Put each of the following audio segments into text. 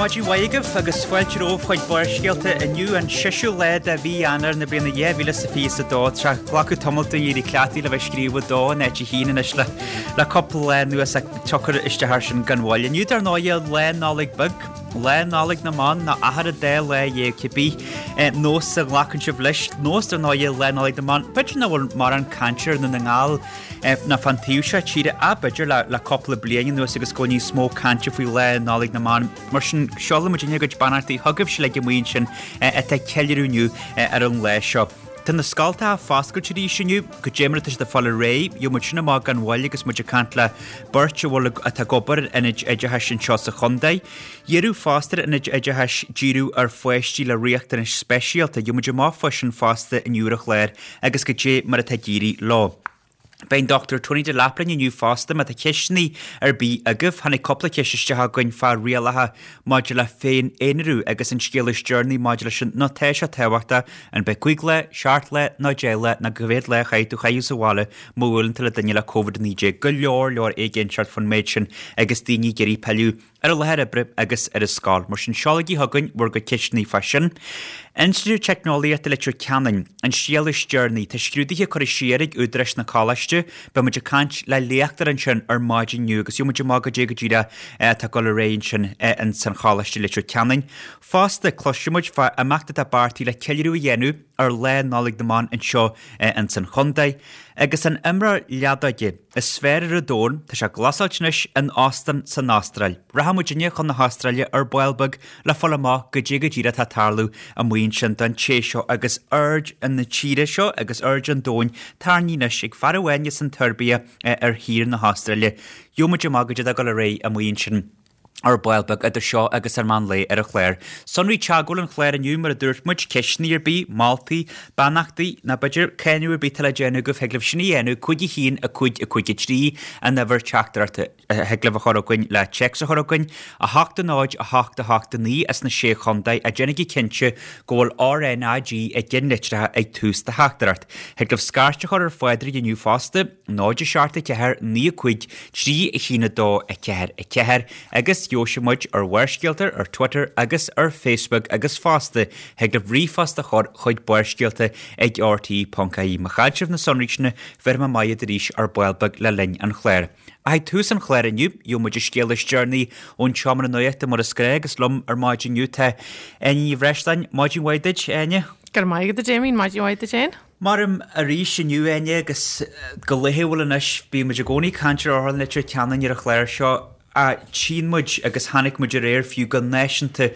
Maidin mhaith agaibh agus fáilte romhaibh chuig Barrscéalta inniu an seisiú lá de mhí Eanáir na bliana 2022 tráth glacadh tamall dúinn éirí cleachtaithe le bheith ag scríobh 2 in áit 1 anois le le cúpla lá anuas ach tiocfar isteach air sin gan mhoill. Inniu dar ndóighe Lá Nollag Beag, Lá Nollag na mBan nó achar an dá lá dhéag cibé nós a ghlacann sibh leis, nós dar ndóighe Lá Nollag na mBan, b'fhéidir nach bhfuil mórán cainte ar Dhún na nGall ná fán taobh seo tíre ach b'fhéidir le cúpla bliain anuas agus go bhfuil níos mó cainte faoi Lá Nollag na mBan. Mar sin, seolann muidinne ár gcuid beannachtaí chugaibhse uilig amuigh ansin atá ag ceiliúradh inniu ar an lá seo. Tá na scoltacha foscailte arís inniu, goidé mar atá siad ag fáil ar aghaidh, gheobhaidh muid sin amach gan mhoill agus muid ag caint le beirt a bhfuil atá ag obair in ionaid oideachais anseo sa chontae. Iarradh fosta ar ionaid oideachais díriú ar pháistí le riachtanais speisialta, gheobhaidh muid amach fá sin fosta inniu ar an chlár agus goidé mar atá ag éirí leo. Beidh an Dr Tony Delap linn inniu fosta má tá ceisteanna ar bith agaibh. Tháinig cúpla ceist isteach againn fá rialacha maidir le féin-aonarú agus an scéal is deireanaí maidir leis sin nó tá sé tábhachtach an b'é 5 lá, 7 lá nó 10 lá nó cá mhéad lá a chaithfidh tú a chaitheamh sa bhaile má bhuaileann tú le duine le Covid-19. Go leor leor éiginnteacht faoin méid sin agus daoine ag iarraidh pilleadh ar an láthair oibre agus ar an scoil. Mar sin, seolaigí chugainn bhur gcuid ceisteanna fá sin. Institiúid Teicneolaíochta Leitir Ceanainn, an scéal is deireanaí. Tá scrúduithe curtha siar ag údaráis na coláiste. Beidh muid ag caint le léachtóir ansin ar maidin inniu agus gheobhaidh muid amach goidé go díreach atá ag dul ar aghaidh ansin ins an Choláiste Leitir Ceanainn. Fosta, cloisfidh muid fá imeacht atá beartaithe le ceiliúradh a dhéanamh ar Lá Nollag na mBan anseo ins an chontae. Agus an imreoir leadóige is fearr ar an domhan, tá sé glasáilte anois in óstán san Astráil. Rachaidh muidinne chun na hAstráile ar ball beag le fáil amach goidé go díreach atá ag tarlú amuigh ansin don té seo agus aird na tíre seo agus aird an domhain tarraingthe anois ag fear amháin as an tSeirbia ar thír na hAstráile. Gheobhaidh muid amach goidé atá ag dul ar aghaidh amuigh ansin. ar ball beag idir seo agus an meán lae ar an chlár. Sonraí teagmhála an chláir inniu, mar a dúirt muid, ceisteanna ar bith, moltaí, beannachtaí, nó b'fhéidir cáineadh ar bith atá le déanamh agaibh, thig libh sin a dhéanamh, 5 1 5 5 3 an uimhir teachtaireachta a thig libh a chur chugainn le téacs a chur chugainn, 8 0 8 8 9 as na Sé Chontae, ach déanaigí cinnte go bhfuil RNAG i gceannlitreacha ag tús do theachtaireacht. Thig libh scairt a chur ar Phádraig inniu fosta. 0 7 4 9 5 3 1 2 4 4 agus gheobhaidh muid ar Bharrscéalta ar Twitter agus ar Facebook agus fosta thig libh ríomhphost a chur chuig barrscéalta ag rte.ie. Má chaill sibh na sonraí sin bhéarfaidh mé amach iad arís ar ball beag le linn an chláir. Ach ag tús an chláir inniu gheobhaidh muid an scéal is deireanaí ón tseomra nuachta mar is gnách agus liom ar maidin inniu tá Áine Ní Bhreisleáin. Maidin mhaith duit, a Áine. Go raibh maith agat a Damien, maidin mhaith duit féin. Maram arís inniu, Áine, agus go laethúil anois, bíonn muid i gcónaí ag caint ar Otharlann Leitir Ceanainn ar an chlár seo, ach tchíonn muid agus chonaic muid aréir fiú go náisiúnta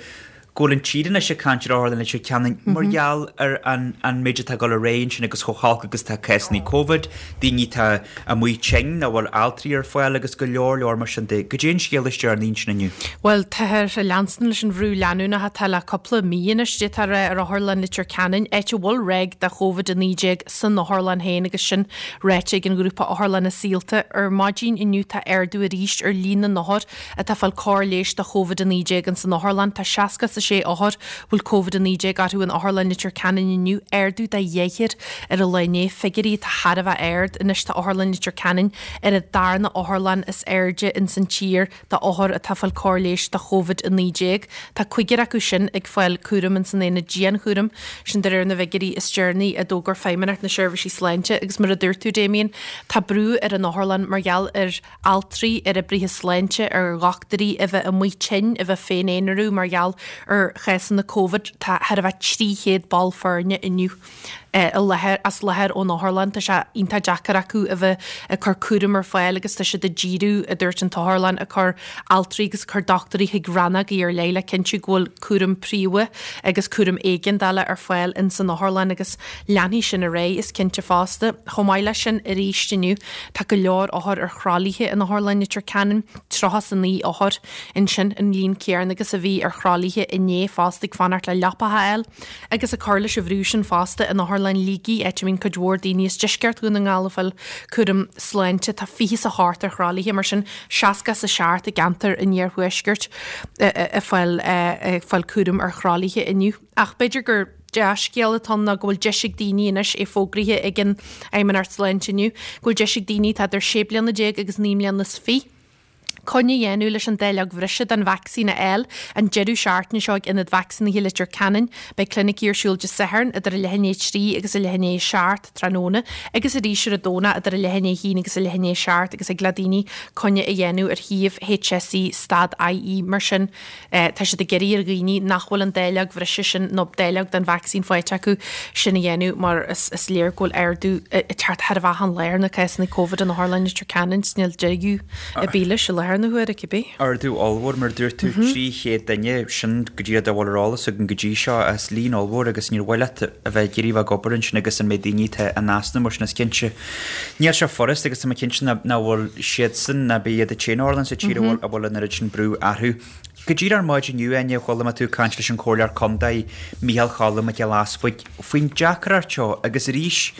go bhfuil an tír anois ag caint ar Otharlann Leitir Ceanainn mar gheall ar an an méid atá ag dul ar aghaidh ansin agus chomh holc agus atá cásanna Covid, daoine atá amuigh tinn, nach bhfuil altraí ar fáil agus go leor leor mar sin de. Goidé an scéal is deireanaí ansin inniu? Bhuel, táthar ag leanstan leis an bhrú leanúnach atá le cúpla mí anois, d'fhéadfá a rá, ar Otharlann Leitir Ceanainn, áit a bhfuil ráig de Covid-19 san otharlann féin agus sin ráite ag an ghrúpa Otharlanna Saolta. Ar maidin inniu tá ardú arís ar líon na n-othar atá ag fáil cóir leighis do Covid-19 ins an otharlann. Tá 66 othar a bhfuil Covid-19 orthu in Otharlann Leitir Ceanainn inniu, ardú de dheichniúr ar an lá inné, figiúirí atá thar a bheith ard. Anois tá Otharlann Leitir Ceanainn ar an darna otharlann is airde ins an tír do othair atá ag fáil cóir leighis do Covid-19. Tá cúigear acu sin ag fáil cúraim ins an aonad dianchúraim, sin de réir na bhfigiúirí is deireanaí a d'fhógair Feidhmeannacht na Seirbhísí Sláinte. Agus mar a dúirt tú, Damien, tá brú ar an otharlann mar gheall ar altraí, ar oibrithe sláinte, ar dhochtúirí a bheith amuigh tinn, a bheith féin-aonarú mar gheall ar chásanna Covid. Tá thar a bheith 300 ball foirne inniu. i láthair, as láthair ón otharlann. Tá sé iontach deacair acu a bheith ag cur cúram ar fáil agus tá siad ag díriú, a dúirt an t-otharlann, ag cur altraí agus ag cur dochtúirí chuig rannógaí ar leith le cinntiú go bhfuil cúram príomha agus cúram éigeandála ar fáil ins an otharlann agus leanfaidh sin ar aghaidh, is cinnte fosta. Chomh maith leis sin, arís inniu, tá go leor othar ar thralaithe in Otharlann Leitir Ceanainn, 39 othar ansin, an líon céanna agus a bhí ar thralaithe inné fosta ag fanacht le leapacha a fháil. Agus ag cur leis an bhrú sin fosta in Otharlann Shligigh, áit a mbíonn cuid mhór daoine as deisceart Dhún na nGall ag fáil cúram sláinte, tá 28 ar thralaithe, mar sin 67 i gceantar an iarthuaiscirt ag fáil ag fáil cúram ar thralaithe inniu. Ach b'fhéidir gur dea-scéal atá ann ná go bhfuil deis ag daoine anois, é fógraithe ag an Fheidhmeannacht Sláinte inniu, go bhfuil deis ag daoine atá idir 16 bliana agus 29 mbliana. Coinne a dhéanamh leis an dáileog bhreise den vacsaín a fháil an deireadh seachtaine seo ag Ionad Vacsaínithe Leitir Ceanainn. Beidh clinicí ar siúl Dé Sathairn idir a leath i ndiaidh 3 agus a leath i ndiaidh 7 tráthnóna agus arís ar an Domhnach idir a leath i ndiaidh 1 agus a leath i ndiaidh 7 agus thig le daoine coinne a dhéanamh ar shuíomh HSE stad IE mar sin. Tá siad ag iarraidh ar dhaoine nach bhfuil an dáileog bhreise sin nó dáileog den vacsaín faighte acu sin a dhéanamh mar is léir go bhfuil ardú ag teacht thar a bheith an lá ar na cásanna Covid in Otharlann Leitir Ceanainn is níl deireadh ar bith leis i láthair na huaire cibé. Ardú ollmhór mar a dúirt tú, 300 duine, sin go díreach dá bhfuil ar eolas againn go dtí seo, is líon ollmhór agus níor mhaith leat a bheith ag iarraidh a bheith ag obair ansin agus an méid daoine atá in easnamh mar sin is cinnte Níl sé furast agus tá mé cinnte nach bhfuil siadsan ná bith iad an t-aon otharlann sa tír a bhfuil an oiread sin brú orthu. Go díreach ar maidin inniu, Áine, chuala mé tú ag caint leis an Chomhairleoir Contae, Micheál Cholm Mac Giolla Easbuig, faoin deacracht seo agus arís,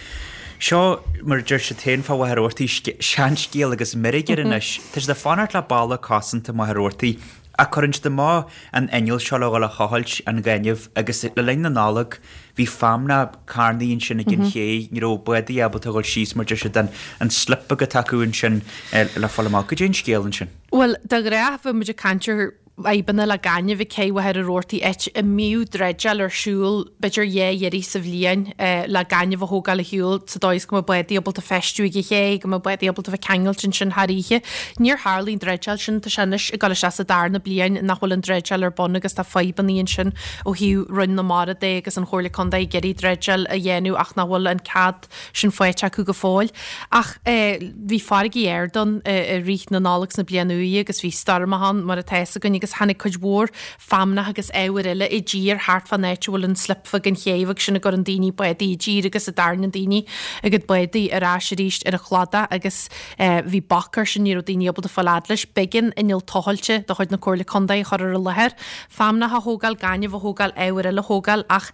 seo, mar a deir siad féin fá Mhachaire Rabhartaigh, seanscéal agus meirg air anois. Tá siad ag fanacht le balla cosanta Mhachaire Rabhartaigh Ach cuireann siad amach an inneall seo le dhul a thochailt an ghainimh agus le linn na Nollag bhí feamnach carnaithe ansin ag an ché, ní raibh bádaí ábalta a dhul síos mar deir siad an an slip beag atá acu ansin le fáil amach. Goidé an scéal ansin? Bhuel, de ghnáth bheadh muid ag caint ar fhadhbanna le gaineamh ag cé Mhachaire Rabhartaigh áit a mbíodh dreideáil ar siúl b'fhéidir dhá iarraidh sa bhliain le gaineamh a thógáil ar shiúl sa dóigh is go mbeadh bádaí ábalta feistiú ag an ché, go mbeadh bádaí ábalta bheith ceangailte ansin thar oíche. Níor tharlaigh an dreideáil sin, tá sé anois ag dul isteach sa darna bliain nach bhfuil an dreideáil ar bun agus tá fadhbanna ansin ó thaobh Roinn na Mara de agus an Chomhairle Contae ag iarraidh dreideáil a dhéanamh ach nach bhfuil an cead sin faighte acu go fóill. Ach bhí farraigí ard ann i rith na Nollag 's na Bliana Úire agus bhí stoirmeacha ann mar atá fhios againn agus tháinig cuid mhór feamnach agus ábhair eile i dtír thart fán áit a bhfuil an slip bheag an ché bheag sin a gcuireann daoine bádaí i dtír agus a dtarraingíonn daoine a gcuid bádaí ar ais arís ar an chladach agus bhí bac air sin, ní raibh daoine ábalta fáil fhad leis. B'éigean inneall tochailte de chuid na Comhairle Contae a chur ar an láthair, feamnach a thógáil, gaineamh a thógáil, ábhair eile a thógáil ach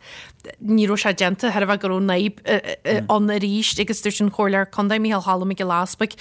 ní raibh sé déanta, thairbhe go raibh an fhadhb ann arís agus dúirt an Comhairleoir Contae Micheál Cholm Mac Giolla Easbuig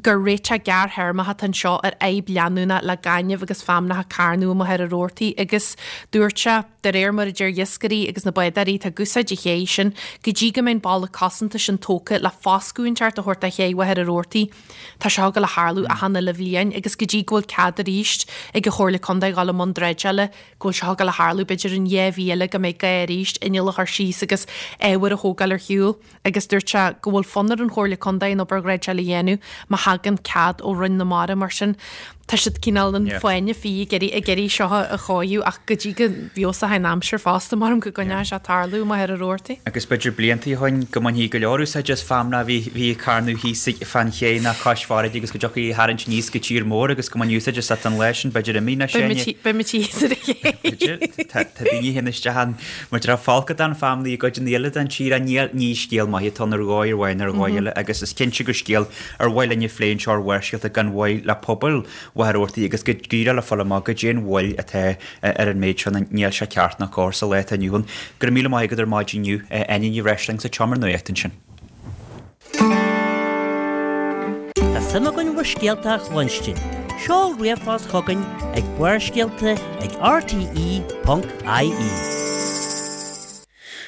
gur réiteach gearrthéarmach atá anseo ar fhadhb leanúnach le gaineamh agus feamnach ag carnadh i Machaire Rabhartaigh agus dúirt sé, de réir mar a deir iascairí agus na bádóirí atá ag úsáid an ché sin, go dtí go mbeidh an balla cosanta sin tógtha le foscadh inteacht a thabhairt do ché Mhachaire Rabhartaigh. Tá seo ag dul a tharlú achan uile bhliain agus go dtí go bhfuil cead arís ag an Chomhairle Contae dhul i mbun dreideála, go bhfuil seo ag dul a tharlú b'fhéidir in 2 mhí eile go mbeidh gá arís inneall a chur síos agus ábhar a thógáil ar shiúl agus dúirt sé go bhfuil fonn ar an Chomhairle Contae an obair dhreideála a dhéanamh má thagann cead ó Roinn na Mara mar sin tá siad cineál an fáinne fí ag iarraidh ag iarraidh seo a chóiriú ach go dtí go bhfeabhsóidh an aimsir fosta maram go gcoinneoidh sé ag tarlú i Machaire Rabhartaigh. Agus b'fhéidir blianta ó shoin go mbainfí go leor úsáide as feamnach a bhí bhí ag carnadh thíos fán ché ná cois farraige agus go dtiocfaí a tharraingt aníos go tír mór agus go mbainfí úsáid as an lá sin b'fhéidir imithe na Beidh Beidh muid thíos ar an ché. B'fhéidir. Tá daoine a théann isteach ann mar tá folcadán feamnaí i gcuideanna eile den tír ach níl ní scéal maith atá ann ar dhóigh amháin ar dhóigh eile agus is cinnte gur scéal ar mhaith linn a phlé anseo ar Bharrscéalta gan mhoill le pobal Mhachaire Rabhartaigh agus go díreach le fáil amach goidé an mhoill atá ar an méid seo níl sé ceart ná cóir sa lá atá inniu ann. Go raibh míle maith agat ar maidin inniu, Áine Ní Bhreisleáin sa tSeomra Nuachta ansin. Tá suim againn bhur scéalta a chluinstin. Seol ríomhphost chugainn ag barrscéalta ag rte.ie.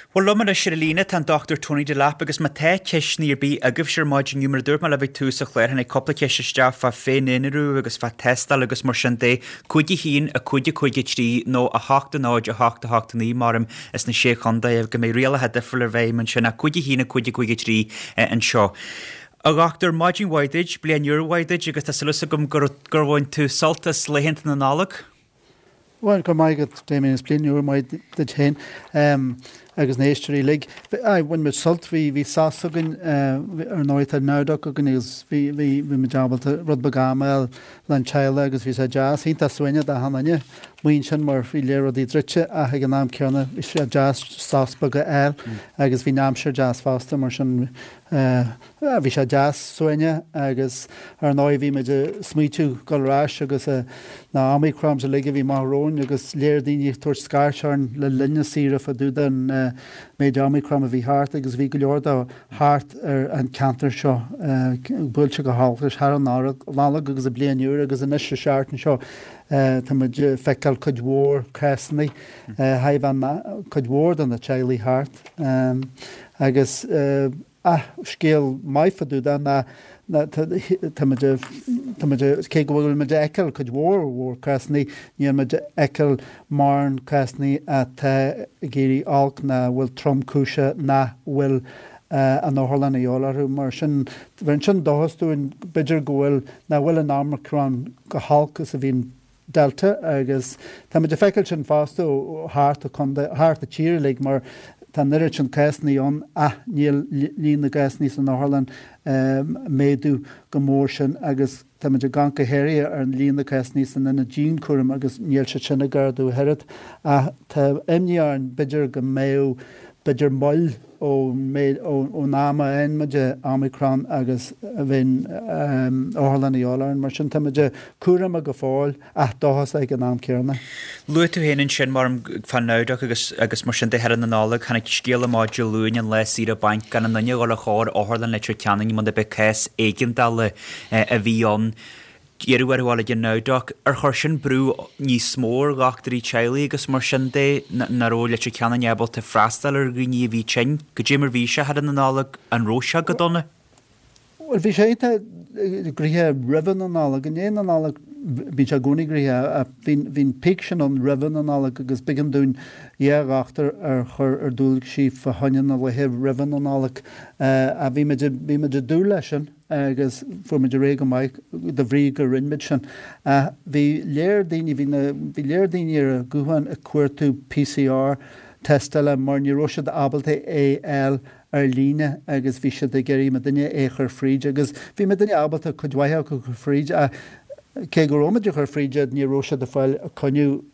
Bhuel, liom anois ar an líne tá an Dr Tony Delap agus má tá ceisteanna ar bith agaibhse ar maidin inniu, mar a dúirt mé libh ag tús an chláir, tháinig cúpla ceist isteach fá féin-aonarú agus fá tástáil agus mar sin de, 5 1 5 5 3 nó 8 0 8 8 9 maram is na Sé Chontae go mbeidh rialacha difriúla i bhfeidhm ansin ach 5 1 5 5 3 anseo. A Dhochtúir, maidin mhaith duit, bliain úr mhaith duit agus tá súil agam gur bhain tú sult as laethanta na Nollag. Bhuel, go raibh maith agat, Damien, is bliain úr mhaith duit féin agus na héisteoirí uilig. Aye, bhain muid sult, bhí, bhí sos againn, ar ndóigh tá Nowdoc againn agus bhí, bhí, bhí muid ábalta rud beag ama a fháil le'n teaghlach agus bhí sé deas, iontach suaimhneach d'achan duine amuigh ansin mar bhí lear rudaí druidte ach ag an am céanna bhí sé deas sos beag a fháil agus bhí an aimsir deas fosta mar sin Bhí sé deas suaimhneach agus ar ndóigh bhí muid ag smaoitiú dul ar ais agus na Omicrons uilig a bhí amach romhainn agus lear daoine ag tabhairt scairt orainn le linn na saoire fá dtaobh den méid Omicron a bhí thart agus bhí go leor dó thart ar an ceantar seo buailte go holc leis thar an Nollaig agus an Bliain Úr agus anois an seachtain seo tá muid ag feiceáil cuid mhór cásanna thar cuid mhór de na teaghlaigh thart agus Ach scéal maith fá dtaobh de ná tá muid ag. Tá muid, cé go bhfuil muid ag feiceáil cuid mhór mhór cásanna, níl muid ag feiceáil mórán cásanna atá ag éirí olc ná a bhfuil tromchúiseach nach bhfuil an otharlann a dhíobháil orthu. Mar sin, bheireann sin dóchas dúinn, b'fhéidir go bhfuil, nach bhfuil an Omicron chomh holc is a bhí an Delta agus tá muid ag feiceáil sin fosta ó thart an chontae, thart an tír uilig mar tá an oiread sin cásanna ann ach níl líon na gcásanna san otharlann ag méadú go mór sin agus tá muid ag amharc go háirithe ar an líon na cásanna san ionad dianchúraim agus níl siad sin ag ardú ach oiread ach tá imní orainn b'fhéidir go mbeadh b'fhéidir moill ón am a fhaigheann muid Omicron agus a bheidh an otharlann a dhíobháil orainn. Mar sin, tá muid cúramach go fóill ach dóchasach ag an am céanna. Luaigh tú féin ansin, mar fán Nowdoc agus agus mar sin de thar na Nollag, tháinig scéal amach Dé Luain an lá saoire bainc gan aon duine a dhul ar chor Otharlann Leitir Ceanainn muna b'é cás éigeandála a bhí ann. Iarradh orthu dul ag an Nowdoc. Ar chuir sin brú níos mó ar dhochtúirí teaghlaigh agus mar sin de, nach raibh Leitir Ceanainn ábalta freastal ar dhaoine a bhí tinn? Goidé mar bhí sé thar na Nollag, an raibh sé go dona? Bhuel, bhí sé iontach gnoitheach roimhe na Nollag. I ndiaidh na Nollag, bíonn sé i gcónaí gnoitheach ach bhí an peak sin ann roimhe na Nollag agus b'éigean dúinn dhá dhochtúir a chur ar dualgaisí fá choinne na laethe roimhe na Nollag. Ach bhí muid, bhí muid ag dúil leis sin. agus fuair muid ar aghaidh go maith de bhrí go rinne muid sin. Ach bhí léir daoine, bhí na, bhí léir daoine ar an ghuthán ag cuartú PCR tástála mar ní raibh siad ábalta é a fháil ar líne agus bhí siad ag iarraidh muidinne é a chur fríd agus bhí muidinne ábalta cuid mhaith acu a chur fríd ach cé go raibh muid ag cur fríd iad ní raibh siad ag fáil coinne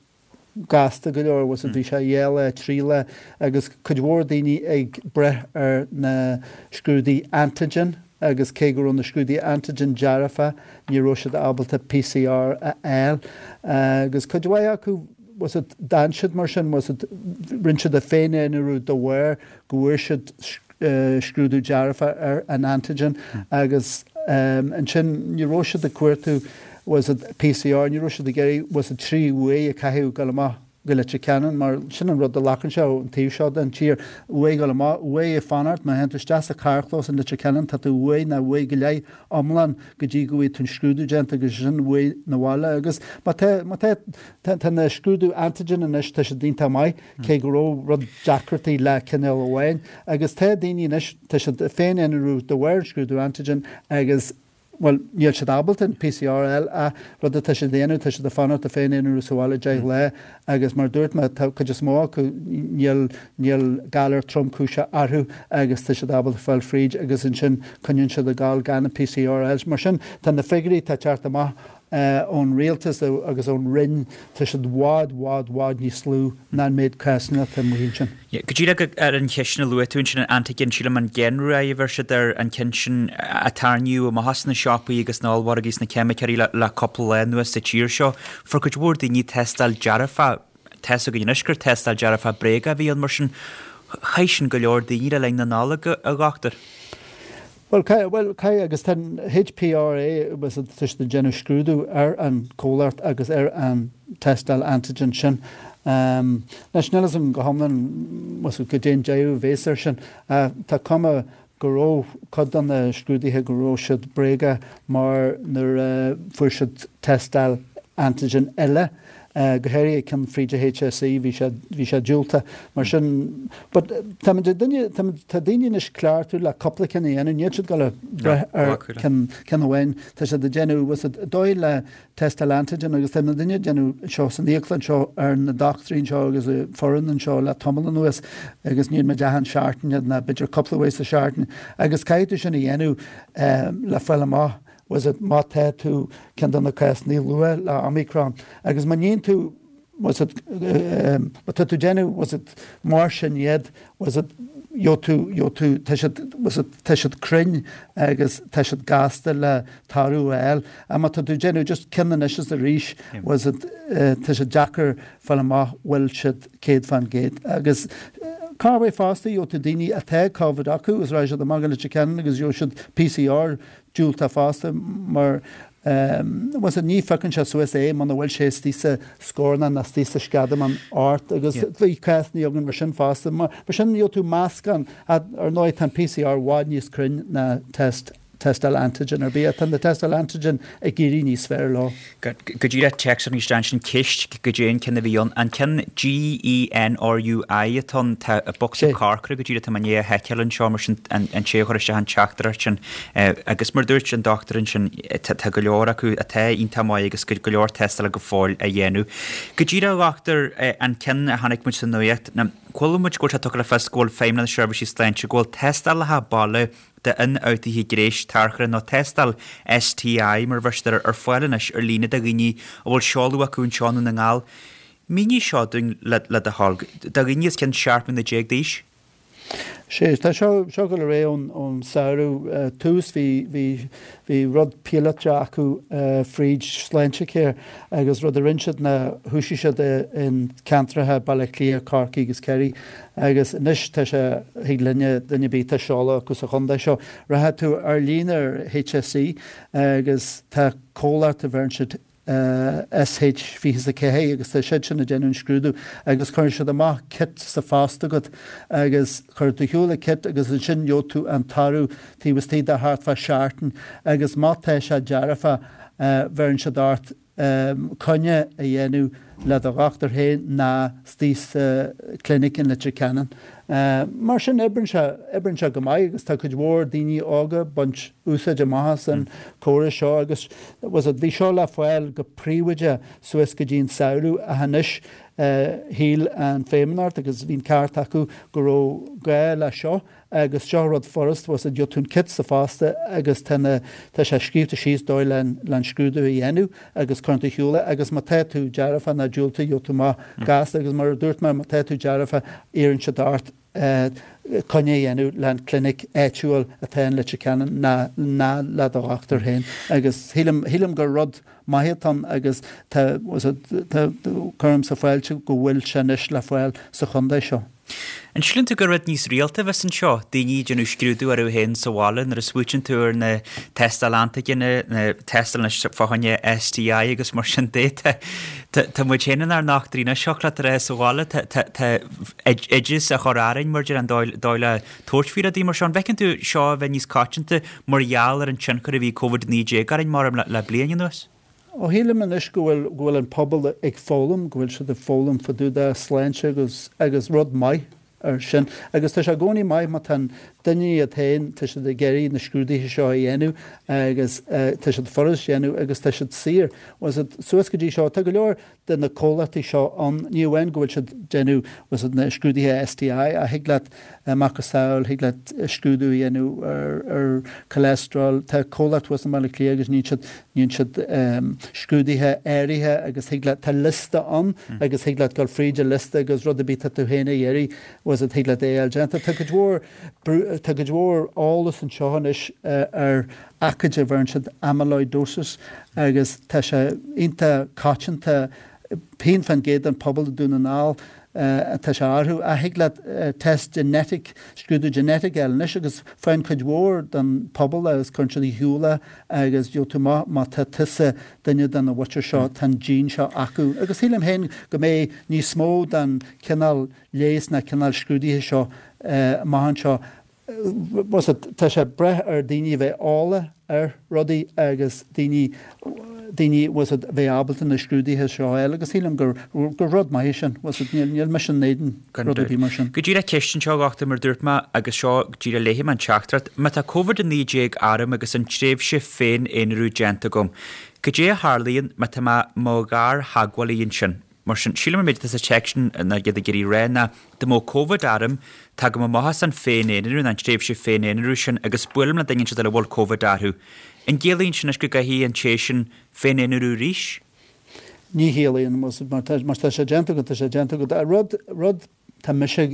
gasta go leor, bhfuil a fhios agat, bhí sé dhá lá, trí lá agus cuid mhór daoine ag breith ar na scrúduithe antigen agus cé go raibh na scrúduithe antigen dearfa ní raibh siad ábalta PCR a fháil agus cuid mhaith acu, bhfuil a fhios agat, d'fhan siad mar sin, bhfuil a fhios agat, rinne siad a féin-aonarú de bharr go bhfuair siad scrúdú dearfa ar an antigen agus ansin ní raibh siad ag cuartú bhfuil a fhios agat PCR, ní raibh siad ag iarraidh bhfuil a fhios agat trí uair a chaitheamh dul amach go Leitir Ceanainn mar sin an rud a ghlacann sé ón taobh seo den tír, uair dul amach, uair ag fanacht, má théann tú isteach sa charrchlós in Leitir Ceanainn tá tú uair ná uair go leith iomlán go dtí go bhfaighidh tú an scrúdú déanta agus ansin uair na bhaile agus má tá, má tá, tá na scrúdú antigen anois tá siad iontach maith. cé go raibh rud deacrachtaí le cineál amháin, agus tá daoine anois, tá siad ag féin-aonarú de bharr an scrúdú antigen agus, bhuel, níl siad ábalta an PCR a fháil ach rud atá siad a dhéanamh, tá siad ag fanacht ag féin-aonarú sa bhaile 10 lá agus mar a dúirt mé, tá cuid is mó acu, níl, níl galar tromchúiseach orthu agus tá siad ábalta fáil fríd agus ansin coinníonn siad ag gabháil gan an PCR a fháil. Mar sin, tá na figiúirí atá ag teacht amach ón rialtas agus ón Roinn, tá siad i bhfad, bhfad, bhfad níos lú ná an méid cásanna atá amuigh ansin. Go díreach ar an cheist sin a luaigh tú ansin, an antigen, sílim an GenRiag a bheir siad air, an ceann sin a tarraingíodh amach as na siopaí agus na ollmhargaí is na ceimiceoirí le cúpla lá anuas sa tír seo. Fuair cuid mhór daoine tástáil dearfach, tá 'fhios againn anois gur tástáil dearfach bréagach a bhí ann, mar sin chaith sin go leor daoine le linn na Nollag, a dhochtúir. Bhuel, caithfidh, bhuel, caithfidh, agus tá an HPRA, tá siad ag déanamh scrúdú ar an chomhlacht agus ar an tástáil antigen sin. Anois, níl fhios agam go hiomlán, bhfuil fhios agat, goidé an deireadh a bhéas air sin. Tá cuma go raibh cuid de na scrúduithe go raibh siad bréagach mar nuair a fuair siad tástáil antigen eile, go háirithe ceann fríd an HSE, bhí sé, bhí sé diúltach. Mar sin, but táimid ag duine, táimid, tá daoine anois cleachtadh le cúpla ceann a dhéanamh, níl siad ag dul a breith ar ceann, ceann amháin, tá siad ag déanamh, bhfuil fhios agat, dóigh le tástáil antigen agus tá muidinne ag déanamh seo san íoclann seo ar na dochtúirí anseo agus an foireann anseo le tamall anuas agus níonn muid achan seachtain iad ná b'fhéidir cúpla uair sa seachtain agus caithfidh tú sin a dhéanamh le fáil amach bhfuil fhios agat, má tá tú ceann de na cásanna luath le Omicron agus má níonn tú, bhfuil fhios agat, má tá tú ag déanamh, bhfuil fhios agat, mar sin iad, bhfuil fhios agat, gheobhaidh tú, gheobhaidh tú, tá siad, bhfuil fhios agat, tá siad cruinn agus tá siad gasta le toradh a fháil. Ach má tá tú ag déanamh just ceann anois is arís, bhfuil fhios agat, tá sé deacair fáil amach bhfuil siad 100%. Agus corruair fosta, gheobhaidh tú daoine atá Covid acu agus raghaidh siad amach go Leitir Ceanainn agus gheobhaidh siad PCR diúltach fosta mar bhfuil fhios agat, ní phiocann sé suas é muna bhfuil sé istigh sa scornach ná istigh sa sceadamán ort agus bhí cásanna againn mar sin fosta. Mar sin gheobhaidh tú meascán, ar ndóigh tá an PCR i bhfad níos cruinn ná test. tástáil antigen ar bith. Ach tá na tástáil antigen ag éirí níos fearr leo. Go díreach téacs arís ansin ceist goidé an ceann a bhí ann. An ceann GENRUI atá ann, tá bocsa corcra go díreach tá mé i ndiaidh a sheiceáil anseo mar sin an té a chuir isteach an teachtaireacht sin. Agus mar dúirt an dochtúir ansin tá go leor acu atá iontach maith agus go leor tástála go fóill á dhéanamh. Go díreach a dhochtúir an ceann a chonaic muid sa nuacht, chuala muid go bhfuil sé tugtha le fios go bhfuil Feidhmeannas na Seirbhísí Sláinte go bhfuil tástálacha baile d'ionfhabhtuithe gnéis tarchurtha nó tástáil STI mar a bheir siad air ar fáil anois ar líne do dhaoine a bhfuil seoladh acu anseo i nDún na nGall. Mínigh seo dúinn le do thoil. Do dhaoine os cionn 17 mbliana d'aois. Sea, tá seo seo ag dul ar aghaidh ón ón samhradh. Tús bhí bhí bhí rud píolótach acu fríd Sláintecare agus rud a rinne siad ná thoisigh siad i in ceantracha Baile Átha Cliath, Corcaigh agus Ciarraí Agus anois tá sé, thig linne, duine ar bith atá seoladh acu sa chontae seo, rachaidh tú ar líne ar HSE agus tá comhlacht a bheireann siad SH24 agus tá siad sin ag déanamh an scrúdú agus cuireann siad amach kit sa phost agat agus cuireann tú ar shiúl an kit agus ansin gheobhaidh tú an toradh taobh istigh de thart fá seachtain agus má tá sé dearfach bheireann siad ort coinne a dhéanamh le do dhochtúir féin ná istigh sa clinic in Leitir Ceanainn. Mar sin, oibreann sé, oibreann sé go maith agus tá cuid mhór daoine óga ag baint úsáid amach as an córas seo agus was it, bhí seo le fáil go príobháideach suas go dtí an samhradh ach anois shíl an Feidhmeannacht agus bhí an ceart acu go raibh gá le seo Agus seo rud furast, was it, gheobhaidh tú an kit sa phost agus tá na, tá sé scríobhta síos dóigh le an scrúdú a dhéanamh agus cuireann tú ar shiúl é agus má tá tú dearfa ná diúltach gheobhaidh tú amach gasta agus mar a dúirt mé má tá tú dearfa iarrann siad ort coinne a dhéanamh le an clinic áitiúil atá in Leitir Ceanainn ná ná le do dhochtúir féin agus shílim, shílim gur rud maith atá ann agus tá, was it, tá, cuirimse fáilte go bhfuil sé anois le fáil sa chontae seo. An síleann tú gur rud níos rialta a bheas anseo, daoine ag déanamh scrúdú orthu féin sa bhaile nuair a smaoitíonn tú ar na tástáil antaigine, na tástáil anois fá choinne STI agus mar sin de, tá tá muid féin inár ndochtúirí anois, thiocfadh leat a rá sa bhaile, tá tá tá oideas á chur orainn mar deir an dóigh dóigh le tabhairt faoi rudaí mar seo. An bhfeiceann tú seo a bheith níos coitianta mar gheall ar an tionchar a bhí Covid-19 orainn mar le le bliain anuas? Ó shílim anois go bhfuil, go bhfuil an pobal ag foghlaim, go bhfuil siad ag foghlaim fá dtaobh de sláinte agus, agus rud maith ar sin. Agus tá sé i gcónaí maith má tá an duine iad féin, tá siad ag iarraidh na scrúduithe seo a dhéanamh agus tá siad furast a dhéanamh agus tá siad saor. Was it, suas go dtí seo, tá go leor de na comhlachtaí seo ann, ní amháin go bhfuil siad déanamh was it na scrúduithe STI ach thig leat macasamhail, thig leat scrúdú a dhéanamh ar ar cholesterol, tá comhlacht thuas i mBaile Átha Cliath agus níonn siad níonn siad scrúduithe áirithe agus thig leat, tá liosta ann agus thig leat dul fríd an liosta agus rud ar bith tá tú féin a iarraidh was it thig leat é a fháil déanta. Tá cuid mhór tá cuid mhór eolas anseo anois ar aicíd a bheireann siad amyloidosis agus tá sé iontach coitianta, 1% den pobal i Dún na nGall atá sé orthu. Ach thig leat test genetic, scrúdú genetic a fháil anois agus faigheann cuid mhór den pobal agus cuireann siad ar shiúl é agus gheobhaidh tú amach má tá tusa duine de na mhuintir seo, tá an gene seo acu. Agus sílim féin go mbeidh níos mó den chineál leighis ná cineál scrúdaithe seo amach anseo. Was it, tá sé ag brath ar daoine a bheith eolach ar rudaí agus daoine, daoine, was it, a bheith ábalta na scrúduithe seo a fháil agus sílim gur, gur rud maith é sin, was it, níl, níl mise in éadan rud ar bith mar sin. Go díreach ceist anseo a dhochtúir mar dúirt mé agus seo go díreach léifidh mé an teachtaireacht, má tá Covid-19 orm agus an tréimhse féin-aonarú déanta agam, cad é a tharlaíonn má tá mé mo ghartheagmhálaí ansin? Mar sin, sílim an méid atá sa téacs sin ná iad ag iarraidh rá ná, dá mbeadh Covid orm, tagaim amach as an féin-aonarú, nó an tréimhse féin-aonarú sin, agus buailim le duine inteacht eile a bhfuil Covid orthu. An gciallaíonn sin anois go gcaithfidh an té sin féin-aonarú arís? Ní chiallaíonn, mar tá sé déanta agat, tá sé déanta agat. Rud, rud Tá mise ag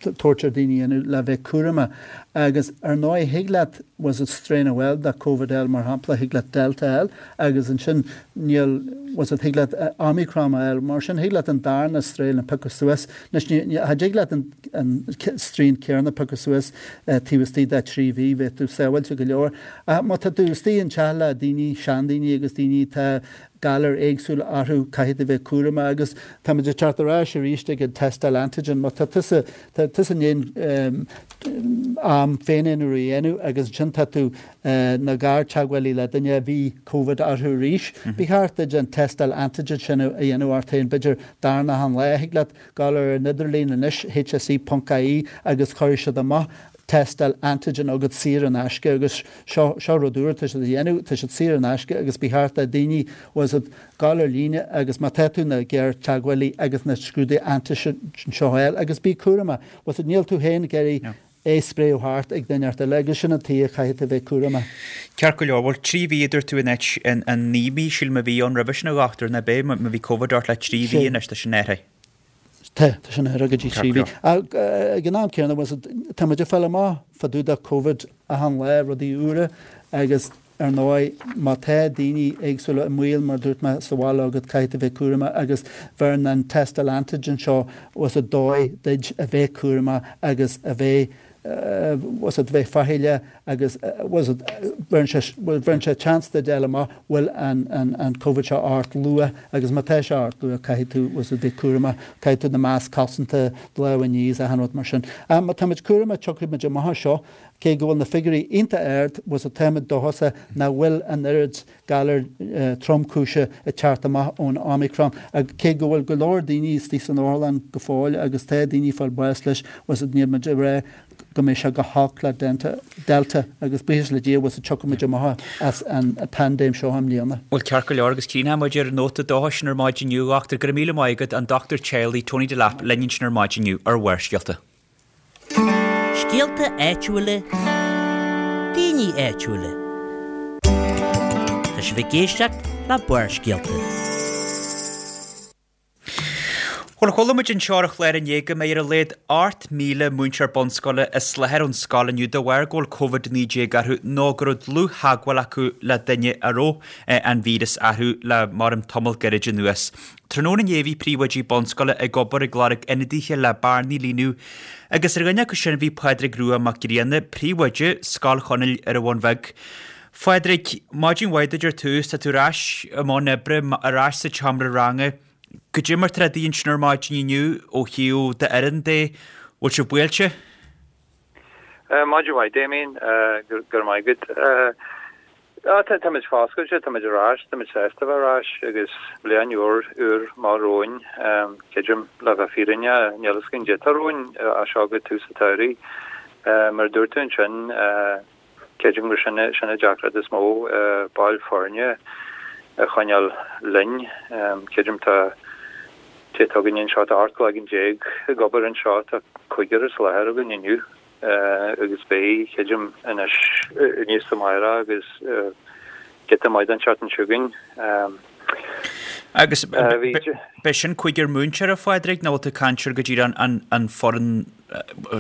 tabhairt ar daoine a dhéanamh le bheith cúramach agus ar ndóigh thig leat was it strain a fháil de Covid a fháil mar shampla thig leat Delta a fháil agus ansin níl was it thig leat Omicron a fháil mar sin thig leat an darna strain a piocadh suas anois ní ní cha dtig leat an an strain céanna a piocadh suas taobh istigh de 3 mhí bheadh tú sábháilte go leor ach má tá tú istigh an teach le daoine seandaoine agus daoine atá. galair éagsúla orthu, caithfidh tú bheith cúramach agus táimid ag teacht ar ais arís ag an tástáil antigen. Má tá tusa, tá tusa i ndiaidh am féin-aonrú a dhéanamh agus ansin tá tú ina ghartheagmhálaí le duine a bhí Covid orthu arís, ba cheart duit an tástáil antigen sin a dhéanamh ort féin, b'fhéidir darna an lá. Thig leat gabháil ar an idirlíon anois, hse.ie, agus cuirfidh siad amach tástáil antigen agat saor in aisce agus seo, seo rud úr atá siad a dhéanamh, tá siad saor in aisce agus ba cheart do daoine, bhfuil a fhios agat, gabháil ar líne agus má tá tú ina ghéartheagmhálaí agus na scrúduithe antigen seo a fháil agus bí cúramach, bhfuil a fhios agat, níl tú féin ag iarraidh é spréadh thart ag duine inteacht eile agus sin an tuige a chaithfidh tú bheith cúramach. Ceart go leor, bhuel 3 mhí a dúirt tú in áit an 9 mí sílim a bhí ann roimhe sin a dhochtúir, nach b'é, má bhí Covid ort le 3 mhí anois tá sin athraithe. Tá, tá sin athraithe go dtí 3 mhí. Ag an am céanna, bhfuil a fhios agat, tá muid ag fáil amach fá dtaobh de Covid achan lá, rudaí úra agus ar ndóigh má tá daoine éagsúla i mbaol, mar a dúirt mé, sa bhaile agat, caithfidh tú bheith cúramach agus bheireann an tástáil antigen seo, bhfuil a fhios agat, dóigh duit a bheith cúramach agus a bheith bhfuil a fhios agat, bheith faichilleach agus bhfuil a fhios agat, bheireann sé, bheireann sé chance duit fháil amach bhfuil an, an, an Covid seo ort luath agus má tá sé ort luath caithfidh tú, bhfuil a fhios agat, bheith cúramach, caithfidh tú na masc cosanta, lámha a ní is achan rud mar sin. Ach má táimid cúramach tiocfaidh muid amach as seo, cé go bhfuil na figiúirí iontach ard, bhfuil a fhios agat, táimid dóchasach nach bhfuil an oiread galar tromchúise ag teacht amach ón Omicron. Cé go bhfuil go leor daoine istigh san otharlann go fóill agus tá daoine ag fáil bás leis, bhfuil a fhios agat, níl muid ag rá go mbeidh sé chomh holc le Delta agus buíochas le Dia, bhfuil a fhios agat, tiocfaidh muid amach as an paindéim seo i mbliana. Bhuel, ceart go leor, agus críochnóidh muid ar an nóta dóchais sin ar maidin inniu, a dhochtúir. Go raibh míle maith agat, an Dochtúir Teaghlaigh, Tony Delap, linn ansin ar maidin inniu ar Bharrscéalta. Scéalta áitiúla, daoine áitiúla. Tá sibh ag éisteacht le Barrscéalta. Bhuel, chuala muid anseo ar an chlár inné go mbeidh ar a laghad 8,000 múinteoir bunscoile as láthair ón scoil inniu de bharr go bhfuil Covid-19 orthu nó go raibh dlúth-theagmháil acu le duine a raibh an víreas orthu le maram tamall gairid anuas. Tráthnóna inné bhí príomhoidí bunscoile ag obair ag lorg ionadaithe le bearnaí a líonadh agus ar dhuine acu sin bhí Pádraig Rua Mac Grianna, príomhoide Scoil Chonaill ar an Bhun Bheag. Phádraig, maidin mhaith duit ar tús, tá tú ar ais i mbun oibre, ar ais sa tseomra ranga. Goidé mar tá rudaí ansin ar maidin inniu ó thaobh d'fhoireann de, bhfuil sibh buailte? Maidin mhaith Damien, go raibh maith agat. Táimid foscailte, táimid ar ais, táimid sásta a bheith ar ais agus bliain úr úr amach romhainn. Creidim, le bheith fírinneach, níl fhios againn goidé atá romhainn as seo go tús an tsamhraidh. Mar a dúirt tú ansin, creidim gur sin sin an deacracht is mó, baill foirne a choinneáil linn. Creidim tá Tá againn anseo, tá 18 cloigeann ag obair anseo, tá cúigear as láthair againn inniu agus beidh, creidim, anois aníos amárach agus giota maith den tseachtain seo chugainn. Agus b'é sin cúigear múinteoir, a Phádraig, nó bhfuil tú ag caint ar go díreach an foireann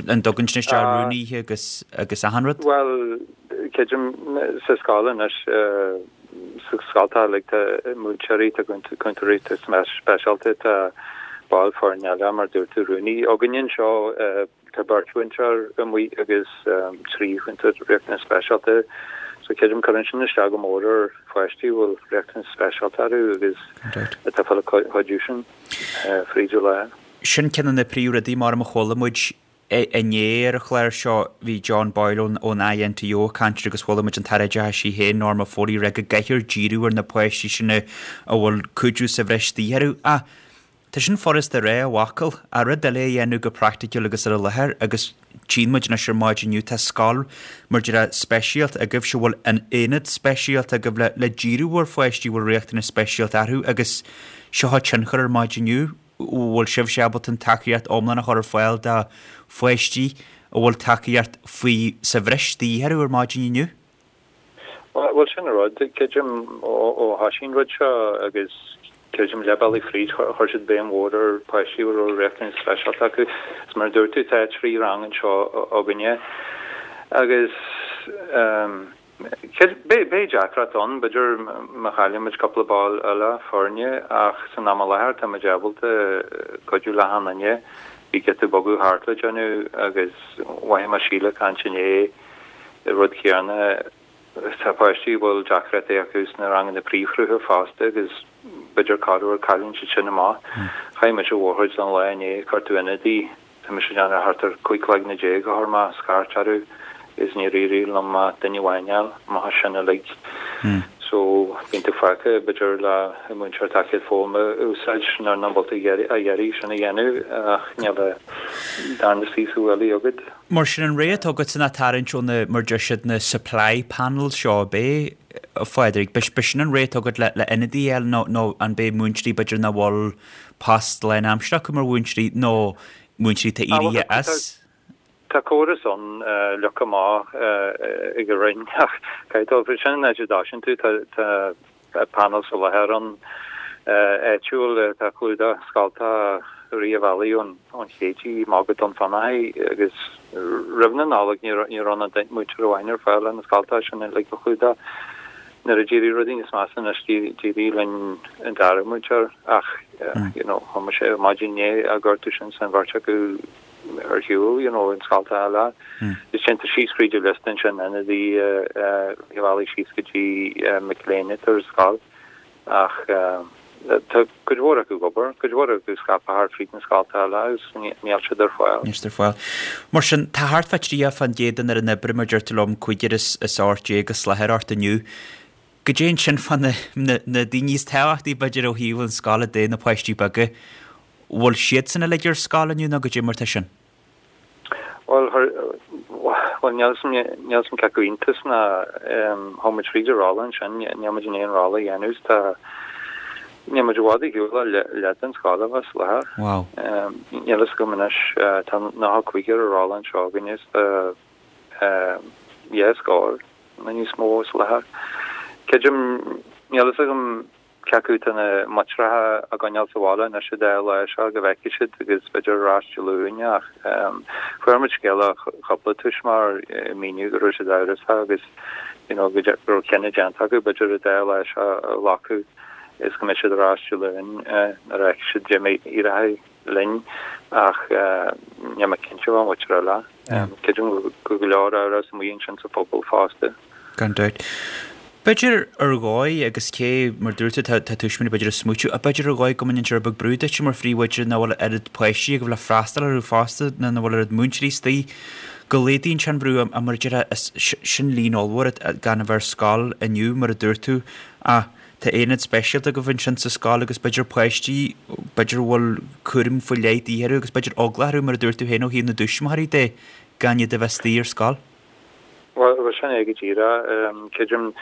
an dtugann sin isteach rúnaithe agus agus achan rud? Bhuel, creidim sa scoil anois, sa scoil tá like tá múinteoirí, tá cúntóirí speisialta, tá baill foirne eile mar dúirt tú rúnaí againn anseo, tá beirt mhúinteoir amuigh agus 3 chúntóir riachtanas speisialta. So creidim cuireann sin isteach go mór ar pháistí a bhfuil riachtanas speisialta orthu agus atá ag fáil an chuidiú sin fríd an lá. Sin ceann de na príomhrudaí mar a chuala muid inné ar an chlár seo. Bhí John Boyle ón INTO ag caint agus chuala muid an tAire Oideachais í féin, Norma Foley, ag rá go gcaithfear díriú ar na páistí sin a bhfuil cuidiú sa bhreis de dhíth orthu. Ach tá sin furasta a rá i bhfocail, ach rud eile a dhéanamh go praiticiúil agus ar an láthair agus tchíonn muid anois ar maidin inniu, tá scoil mar déarfá speisialta agaibhse, bhfuil an aonad speisialta agaibh le díriú ar pháistí a bhfuil riachtanais speisialta orthu agus seo an tionchar ar maidin inniu. bhfuil sibhse ábalta an tacaíocht iomlán a chur ar fáil do pháistí a bhfuil tacaíocht faoi sa bhreis de dhíth orthu ar maidin inniu? Bhuel, sin an rud, creidim, ó thoisigh an rud seo agus creidim leath bealaigh fríd, chuir siad béim mhór ar pháistí a raibh riachtanais speisialta acu. Is mar a dúirt tú, tá 3 rang anseo againne agus. Beidh deacracht ann, b'fhéidir, má chailleann muid cúpla ball eile foirne ach san am i láthair tá muid ábalta cuidiú le achan duine. Bhí giota bogadh thart le déanamh agus mhothaigh mé Síle ag caint inné an rud céanna. Tá páistí a bhfuil deacrachtaí acu sna ranganna príomhshrutha fosta agus b'fhéidir corruair cailleann siad sin amach. Chaith mise mórchuid den lá inné ag cuartú ionadaí. Tá mise ag déanamh thart ar 15 cloigne a chuir mé scairt orthu agus níor éirigh liom ach duine amháin a fháil amach as sin uilig. So bíonn tú fágtha b'fhéidir le an múinteoir tacaíocht foghlama a úsáid nuair nach bhfuil tú á iarraidh sin a dhéanamh ach níl an darna suí sa bhuailidh agat. Mar sin an rogha atá agatsa ná tarraingt ó na, mar deir siad, na supply panels seo ab é, a Phádraig? B'shin an rogha atá agat le le ionadaí a fháil nó nó an b'é múinteoirí b'fhéidir nach bhfuil post lánaimseartha acu mar mhúinteoirí nó múinteoirí atá éirithe as? Tá córas ann leagtha amach ag an Roinn ach caithfidh dul fríd sin an áit a dtosaíonn tú. Tá panel soláthair ann áitiúil atá ag clúdach scoltacha i rith an bhealaigh ón Chéididh amach go Dún Fionnachaidh agus roimh na Nollag ní raibh ann ach múinteoir amháin ar fáil le na scoltacha sin uilig a chlúdach. Nuair a d'éirigh rudaí níos measa anois d'éirigh linn an dara múinteoir ach you know chuaigh mise ar maidin inné á gortú sin san bheirt acu ar shiúl you know in scoltacha eile. Is déantar síos fríd an liosta ansin ionadaí a bhealaigh síos go dtí mic léinn atá ar scoil ach tá cuid mhór acu ag obair, cuid mhór acu scaipthe thart fríd na scoltacha eile agus níl siad ar fáil. Níl siad ar fáil. Mar sin, tá thart fá 30% den fhoireann oibre, mar deir tú liom, cúigear is 18 as láthair ort inniu. Goidé ansin fá na na daoine is tábhachtaí b'fhéidir ó thaobh an scoile de, na páistí beaga, bhfuil siadsan uilig ar scoil inniu nó goidé mar tá sin? Bhuel, bhuel, níl 'fhios níl 'fhios a'm cé acu iontas ná chuaigh muid fríd an rolla ansin, níl muid in ann aon rolla a dhéanamh, tá, níl muid i bhfad ar shiúl ó leath den scoil a bheith as láthair. Wow. Níl 'fhios agam anois, tá 95 ar an rolla anseo againne is tá dhá scór nó níos mó as láthair. Creidim, níl 'fhios agam Cé acu tá na máitreacha á gcoinneáil sa bhaile anois an dá lá seo go bhfeicfidh siad agus b'fhéidir ar ais Dé Luain ach fuair muid scéala ó chúpla tuismitheoir ag míniú go raibh siad amhrasach agus you know go raibh cinneadh déanta acu b'fhéidir an dá lá seo a ghlacadh is go mbeidh siad ar ais Dé Luain nuair a fheicfidh siad goidé mar a éireoidh linn ach níl mé cinnte fán mhuintir eile. Creidim go bhfuil go leor amhras amuigh ansin sa phobal fosta. Gan dabht. B'fhéidir ar dhóigh, agus cé, mar dúirt tú, tá tuismitheoirí b'fhéidir ag smaoitiú, ach b'fhéidir ar dhóigh go mbaineann sé rud beag brú duitse mar phríomhoide nach bhfuil oiread páistí agaibh le freastal orthu fosta, nó nach bhfuil oiread múinteoirí istigh, go laghdaíonn sé an brú, ach mar a déarfá, sin líon ollmhór gan a bheith ar scoil inniu, mar a dúirt tú, ach tá aonad speisialta agaibh ansin sa scoil agus b'fhéidir páistí, b'fhéidir a bhfuil cúram faoi leith de dhíth orthu agus b'fhéidir eagla orthu, mar a dúirt tú féin, ó thaobh na dtuismitheoirí de, gan iad a bheith istigh ar scoil. Bhuel, sin é go díreach. Creidim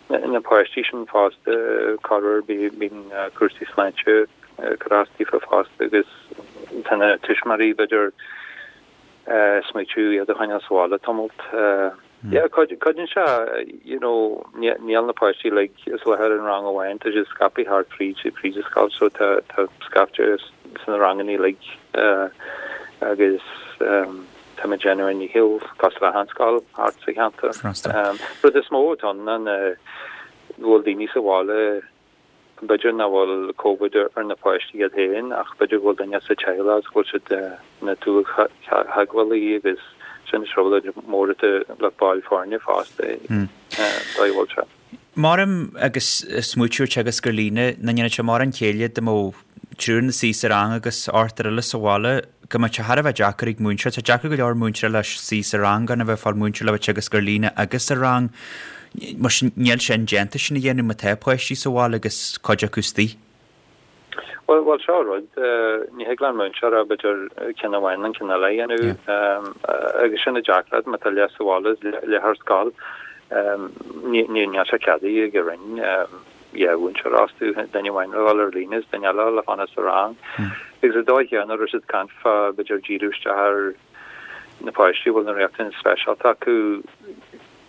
na páistí sin fosta, corruair bíonn cúrsaí sláinte ag cur as daofa fosta agus tá na tuismitheoirí b'fhéidir ag smaoitiú iad a choinneáil sa bhaile tamalt. Yeah, cuidíonn sé, you know, níl na páistí uilig as láthair in rang amháin, tá siad scaipthe thart fríd fríd an scoil so tá tá scaifte sna ranganna uilig agus Táimid ag déanamh ár ndícheall cosúil le achan scoil thart sa cheantar. Rud is mó atá ann ná go bhfuil daoine sa bhaile, b'fhéidir nach bhfuil Covid ar na páistí iad féin ach b'fhéidir go bhfuil duine sa teaghlach agus go bhfuil siad ina dlúth-theagmhálaí agus sin trioblóid mhór atá le baill foirne fosta, dóigh a bhfuil sé. Maram agus smaoitiú ar teagasc ar líne, nach ndéanfadh sé mórán céille dá mbeadh triúr ina suí sa rang agus ochtar eile sa bhaile, go mbeadh sé thar a bheith deacair ag múinteoir. Tá deacair go leor múinteoir le suí sa rang gan a bheith ag fáil múinteoir le bheith ag teagasc ar líne agus sa rang. Mar sin, níl sé indéanta sin a dhéanamh má tá páistí sa bhaile agus cuid acu istigh. Bhuel, bhuel, seo rud, ní thig le an múinteoir ach b'fhéidir ceann amháin nó ceann eile a dhéanamh agus sin an deacracht má tá leath sa bhaile is leath ar scoil. Ní, níl sé ceadaithe ag an Roinn dhá mhúinteoir a fhostú, duine amháin le dhul ar líne is duine eile le fanacht sa rang. Agus an dóigh chéanna raibh siad ag caint fá b'fhéidir díriú isteach ar na páistí a bhfuil na riachtanais speisialta acu,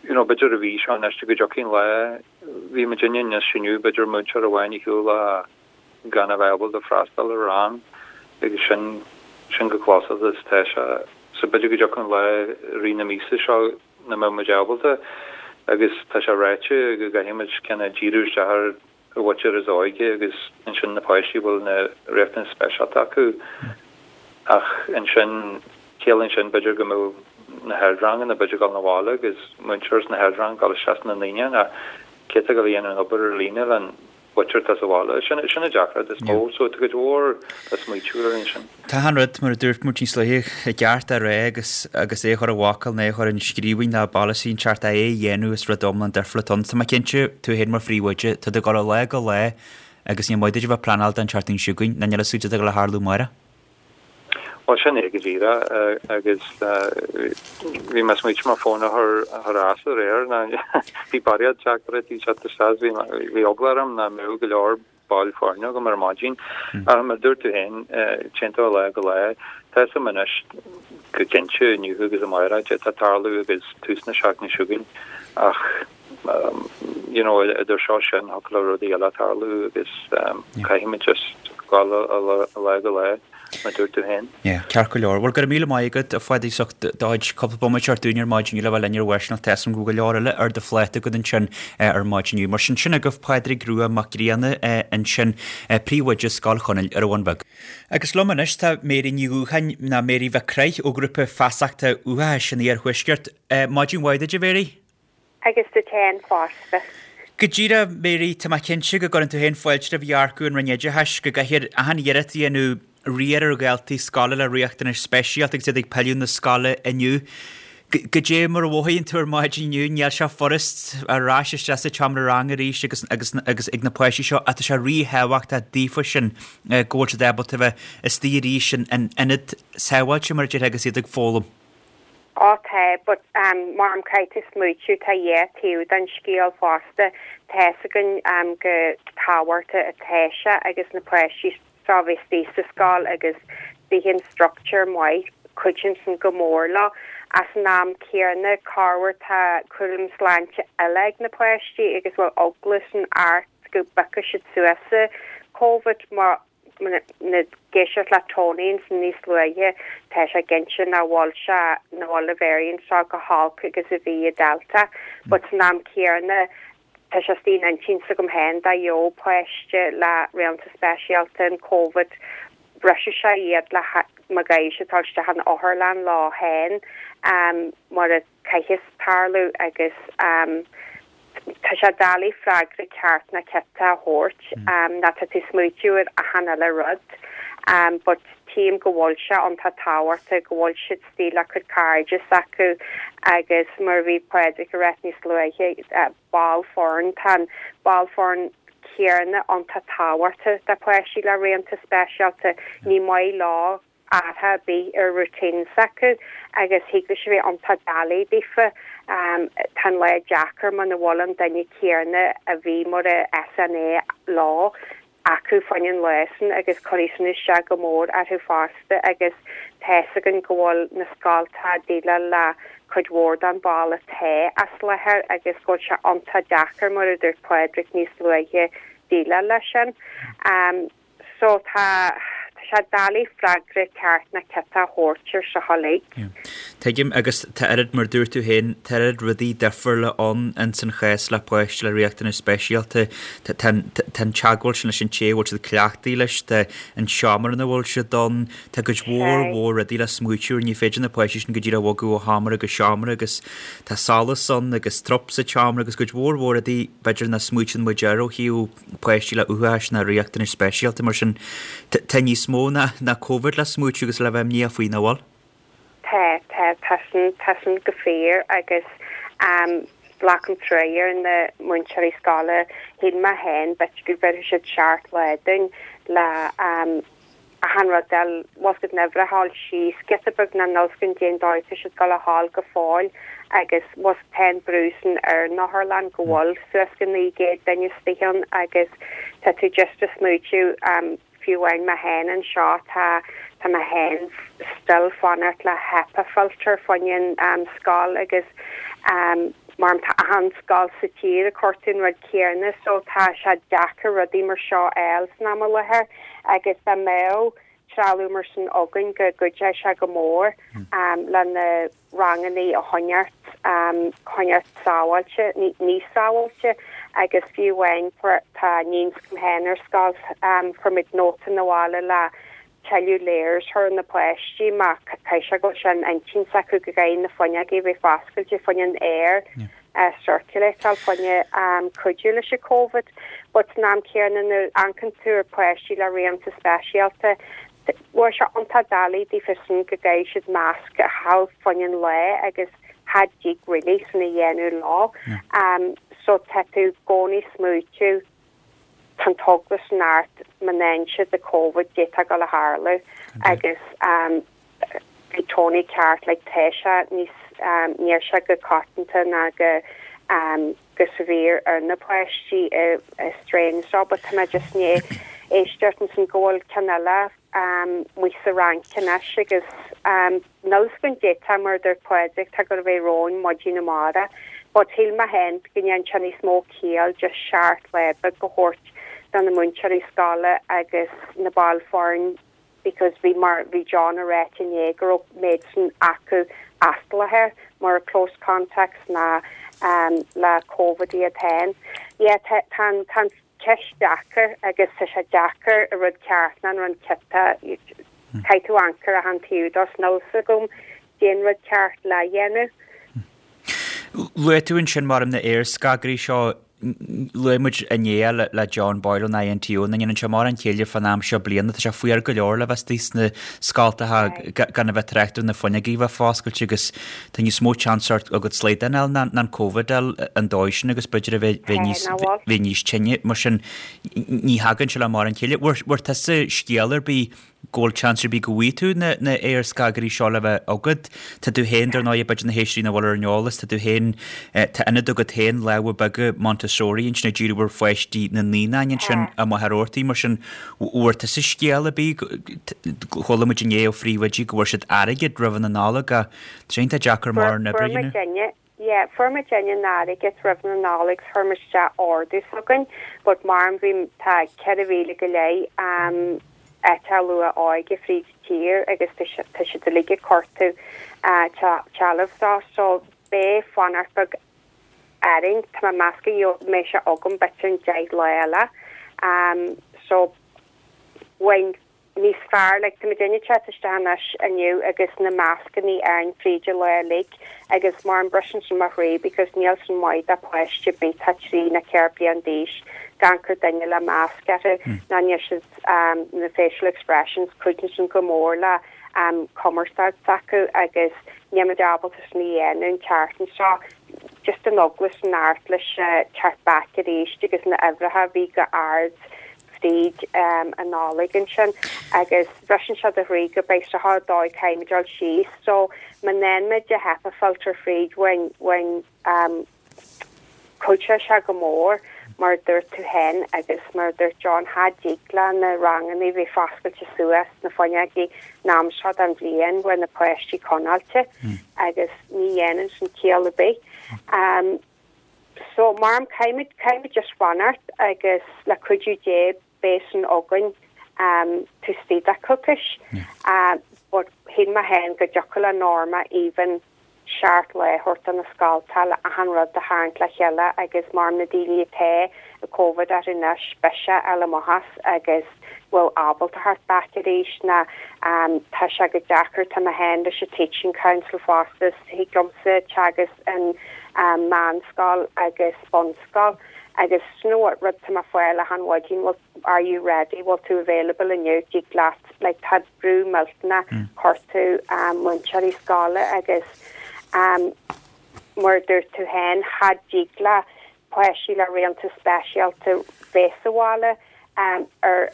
you know, b'fhéidir an mhí seo anois go dtiocfaidh an lá Bhí muidinne níos inniu, b'fhéidir múinteoir amháin ar shiúl gan a bheith ábalta freastal ar rang agus sin, sin chomh closálta is atá sé. So b'fhéidir go dtiocfaidh an lá i rith na míosa seo nach mbeidh muid ábalta agus tá sé ráite go gcaithfidh muid kind of díriú isteach ar an mhuintir is óige agus ansin na páistí a bhfuil na riachtanais speisialta acu ach ansin ciallaíonn sin b'fhéidir go mbeadh. na hardranganna b'fhéidir ag dul 'na bhaile agus múinteoir sna hardranganna ag dul isteach sna naíonáin ach cé atá ag dul a dhéanamh an obair ar líne len mhuintir atá sa bhaile. Sin sin an deacracht is mó. So tá cuid mhór le smaoitiú air ansin. Tá an rud, mar a dúirt muid níos luaithe, i gceart a rá agus agus é a chur i bhfocal nó é a chur in scríbhinn ná polasaí inteacht é a dhéanamh is rud iomlán difriúil atá ann. Tá mé cinnte, tú féin mar phríomhoide, tá tú ag dul ó lá go lá agus ní maith duit a bheith ag pleanáil don tseachtain seo chugainn, ná níl a fhios agat cad atá ag dul a tharlú amárach. Bhuel, sin é go díreach agus bhí mé ag smaoitiú mo fón a chur chur as aréir ná bhí barraíocht teachtaireachtaí ag teacht isteach bhí bhí eagla orm nach mbeadh go leor baill foirne agam ar maidin. Ach mar a dúirt tú féin, téann tú ó lá go lá. Tá fhios agam anois go cinnte inniu agus amárach cad tá ag tarlú agus tús na seachtaine seo chugainn ach you know idir seo sin thiocfadh le rudaí eile tarlú agus caithfimid just dul ó lá go lá mar a dúirt tú féin. Yeah, ceart go leor. Bhuel, go raibh míle maith agat, a Phádraig, as ucht do chuid cúpla bomaite a thabhairt dúinn ar maidin inniu le bheith linn ar Bharrscéalta. Tá fhios agam go bhfuil go leor eile ar do phláta agat ansin ar maidin inniu. Mar sin, sin agaibh Pádraig Rua Mac Grianna ansin, Príomhoide Scoil Chonaill ar an Bhun Bheag. Agus liom anois tá Mary Ní Dhúcháin, nó Mary Mhic Craith ó Ghrúpa Feasachta Uathachais an Iarthuaiscirt. Maidin mhaith duit, a Mhary. Agus duit féin fosta. Go díreach, Mary, tá mé cinnte go gcuireann tú féin fáilte roimh dhearcadh an Roinn Oideachais go gcaithfear achan iarracht a dhéanamh riar ar dhaltaí scoile le riachtanais speisialta agus iad ag pilleadh na scoile inniu. Goidé mar a mhothaíonn tú ar maidin inniu, níl sé furast ar ais isteach sa tseomra ranga arís agus agus agus ag na páistí seo ach tá sé ríthábhachtach daofa sin go bhfuil siad ábalta a bheith istigh arís in ionad sábháilte mar a déarfá agus iad ag foghlaim. Á tá, but mar um caithfidh tú smaoitiú tá dhá taobh den scéal fosta. Tá fhios againn go tábhachtach atá sé agus na páistí seo a bheith istigh sa scoil agus bíonn an structure maith, cuidíonn sin go mór leo. Ach san am céanna corruair tá cúram sláinte eile ag na páistí agus bhfuil eagla san ort go bpiocfaidh siad suas Covid má ag éisteacht le Tony ansin níos luaithe, tá sé cinnte nach bhfuil sé, nach bhfuil an variant seo chomh holc agus a bhí an Delta. But san am céanna, tá sé istigh in intinn s'agam féin dá gheobhadh páiste le riachtanais speisialta an Covid, bhrisfeadh sé iad le má gcaithfidh siad dul isteach in otharlann leo féin mar a caithfeas tarlú agus Tá sé doiligh freagra ceart ná ciotach a thabhairt ná tá tú ag smaoitiú ar achan uile rud but tchím go bhfuil sé iontach tábhachtach go bhfuil siad istigh le cuid cairde s'acu agus mar a bhí Pádraig ag ráit níos luaithe ball foirne tá an ball foirne céanna iontach tábhachtach do pháistí le riachtanais speisialta ní maith leo athrú ar bith ar routine s'acu agus thig leis a bheith iontach doiligh daofa. Tá an lá deacair muna bhfuil an duine céanna a bhí mar a SNA leo acu fá choinne an lá sin agus cuirfidh sin isteach go mór orthu fosta agus tá fhios againn go bhfuil na scoltacha ag déileáil le cuid mhór den ball atá as láthair agus go bhfuil sé iontach deacair mar a dúirt Pádraig níos luaithe déileáil leis sin. So tá, tá sé doiligh freagra ceart ná ciotach a thabhairt ar seo uilig. Yeah. Tuigim, agus tá oiread, mar dúirt tú féin, tá oiread rudaí difriúla ann ins an chás le páiste le riachtanais speisialta. Tá, tá an, tá an teagmháil sin leis an té a bhfuil siad cleachtaithe leis, tá an seomra ina bhfuil siad ann, tá cuid mhór mhór rudaí le smaoitiú ar, ní féidir na páistí sin go díreach a bhogadh ó sheomra go seomra agus tá solas ann agus trup sa tseomra agus cuid mhór mhór rudaí b'fhéidir nach smaoitíonn muid air ó thaobh páistí le uathachas ná riachtanais speisialta, mar sin tá níos mó ná ná Covid le smaoitiú agus le bheith imníoch faoi, nach bhfuil? Tá, tá, tá sin, tá sin go fíor agus glacaim truaighe ar na múinteoirí scoile, shíl mé féin b'fhéidir go bhéarfaidh siad seacht lá dúinn le achan rud eile, bhfuil 's agat na huimhreacha a fháil síos giota beag ná níl 's againn cén dóigh atá siad ag dul a ghabháil go fóill agus bhfuil 's tá an brú sin ar an otharlann go bhfuil suas go 900 duine istigh ann agus tá tú just ag smaoitiú fiú amháin mé féin anseo tá tá mé féin still fanacht le HEPA filter fá choinne an scoil agus mar tá achan scoil sa tír ag cuartú an rud céanna so tá sé deacair rudaí mar seo a fháil san am i láthair. agus dá mbeadh trealamh mar sin againn go gcuideodh sé go mór le na rangannaí a choinneáilt choinneáilt sábháilte, níos sábháilte agus fiú amháin tá iníon s'agam féin ar scoil, fuair muid nóta 'na bhaile le. tuilleadh layers a chur ar na páistí mar caithfidh sé go bhfuil sé in intinn s'acu go gcaithfidh na fuinneogaí a bheith foscailte fá choinne an aer a circulateáil fá choinne cuidiú leis an Covid. But san am céanna nuair a amharcann tú ar páistí le riachtanais speisialta, bhfuil sé iontach doiligh daofa sin go gcaithfidh siad masc a chaitheamh fá choinne an lae agus cha dtig really sin a dhéanamh leo. So tá tú i gcónaí ag smaoitiú tá an t-eagla sin ort má fhaigheann siad an Covid cad é atá ag dul a tharlú agus bhí Tony ceart like tá sé níos níl sé go coitianta ná go go severe ar na páistí i strain seo but tá mé just i ndiaidh éisteacht ansin go bhfuil ceann eile amuigh sa Fhrainc anois agus níl fhios againn cad é tá mar a dúirt Pádraig tá ag dul a bheith romhainn maidin amárach but shíl mé féin go ndéanann sé níos mó ciall just seacht lá beag a thabhairt do na múinteoirí scoile agus na baill foirne because bhí mar bhí John a ráit inné go raibh méid sin acu as láthair mar close contacts ná le Covid iad féin. Yeah tá tá an tá an ceist deacair agus tá sé deacair an rud ceart ná an rud ciota caithfidh tú amharc ar achan taobh dó 's níl fhios agam cén rud ceart le dhéanamh. Luaigh tú ansin mar na aerscagairí seo, luaigh muid inné le John Boyle ón INTO nach ndéanann sé mórán céille fán am seo bliana, tá sé fuar go leor le bheith istigh sna scoltacha gan a bheith ag trácht ar na fuinneogaí a bheith foscailte agus tá níos mó chance agat slaghdán a fháil ná an Covid a fháil an dóigh sin agus b'fhéidir a bheith níos bheith níos tinne mar sin ní thagann sé le mórán céille. Bhfuair tusa scéal ar bith go bhfuil chance ar bith go bhfaighidh tú na na aerscagairí seo le bheith agat. Tá tú féin, dar ndóigh, b'fhéidir na héisteoirí nach bhfuil ar an eolas, tá tú féin, tá ionad agat féin, Lámha Beaga Montessori ansin ag díriú ar pháistí na naíonáin ansin i Machaire Rabhartaigh, mar sin, bhfuair tusa scéal ar bith, chuala muid inné ó phríomhoidí go bhfuair siad airgead roimh na Nollag ach tá sé iontach deacair mar an obair a dhéanamh. Yeah, fuair muidinne an airgead roimh na Nollag 's chuir muid isteach ordú s'againn but mar bhí tá 4,000 go leith um áiteacha luath óige fríd an tír agus tá si tá siad uilig ag cuartú trealamh dó so beidh fanacht beag orainn tá mé ag meas go mbeidh sé agam b'fhéidir in 10 lá eile um so bhain níos fearr, like, tá muidinne ag teacht isteach anois inniu agus na mascannaí orainn fríd an lá uilig agus mar an briseann sin mo chroí because níl sin maith do pháiste ar bith atá 3 nó 4 bliain d'aois gan cur duine le masc orthu ná níl siad um na facial expressions cuidíonn sin go mór le um cumarsáid s'acu agus níl muid ábalta sin a dhéanamh an tseachtain seo just an eagla sin ort leis teacht back arís agus na uimhreacha a bhí go ard fríd an Nollaig ansin agus briseann sé do chroí go beidh sé seo dóigh caithfimid dul síos so má fhaigheann muid an HEPA filter fríd bhain bhain cuideoidh sé go mór mar a dúirt tú féin agus mar a dúirt John cha dtig le na ranganna bheith foscailte suas na fuinneogaí an am seo den bhliain bhfuil na páistí coinneáilte agus ní dhéanann sin ciall ar bith. So, mar caithfimid, caithfimid just fanacht agus le cuidiú Dé beidh sin againn taobh istigh de coicís. But shíl mé féin go dtiocfadh le Norma even seacht lá a thabhairt do na scoltacha le achan rud a tharraingt le chéile agus mar na daoine atá ag Covid orthu anois beidh sé ar amach as agus bhfuil ábalta theacht back arís ná tá sé go deacair tá mé féin leis an Teaching Council fosta thig liomsa teagasc in meánscoil agus bunscoil agus you know what rud tá mé ag fáil achan mhaidin bhfuil are you ready bhfuil tú available inniu dtig leat like tá brú millteanach chuirtú múinteoirí scoile agus mar a dúirt tú féin cha dtig le páistí le riachtanais speisialta bheith sa bhaile ar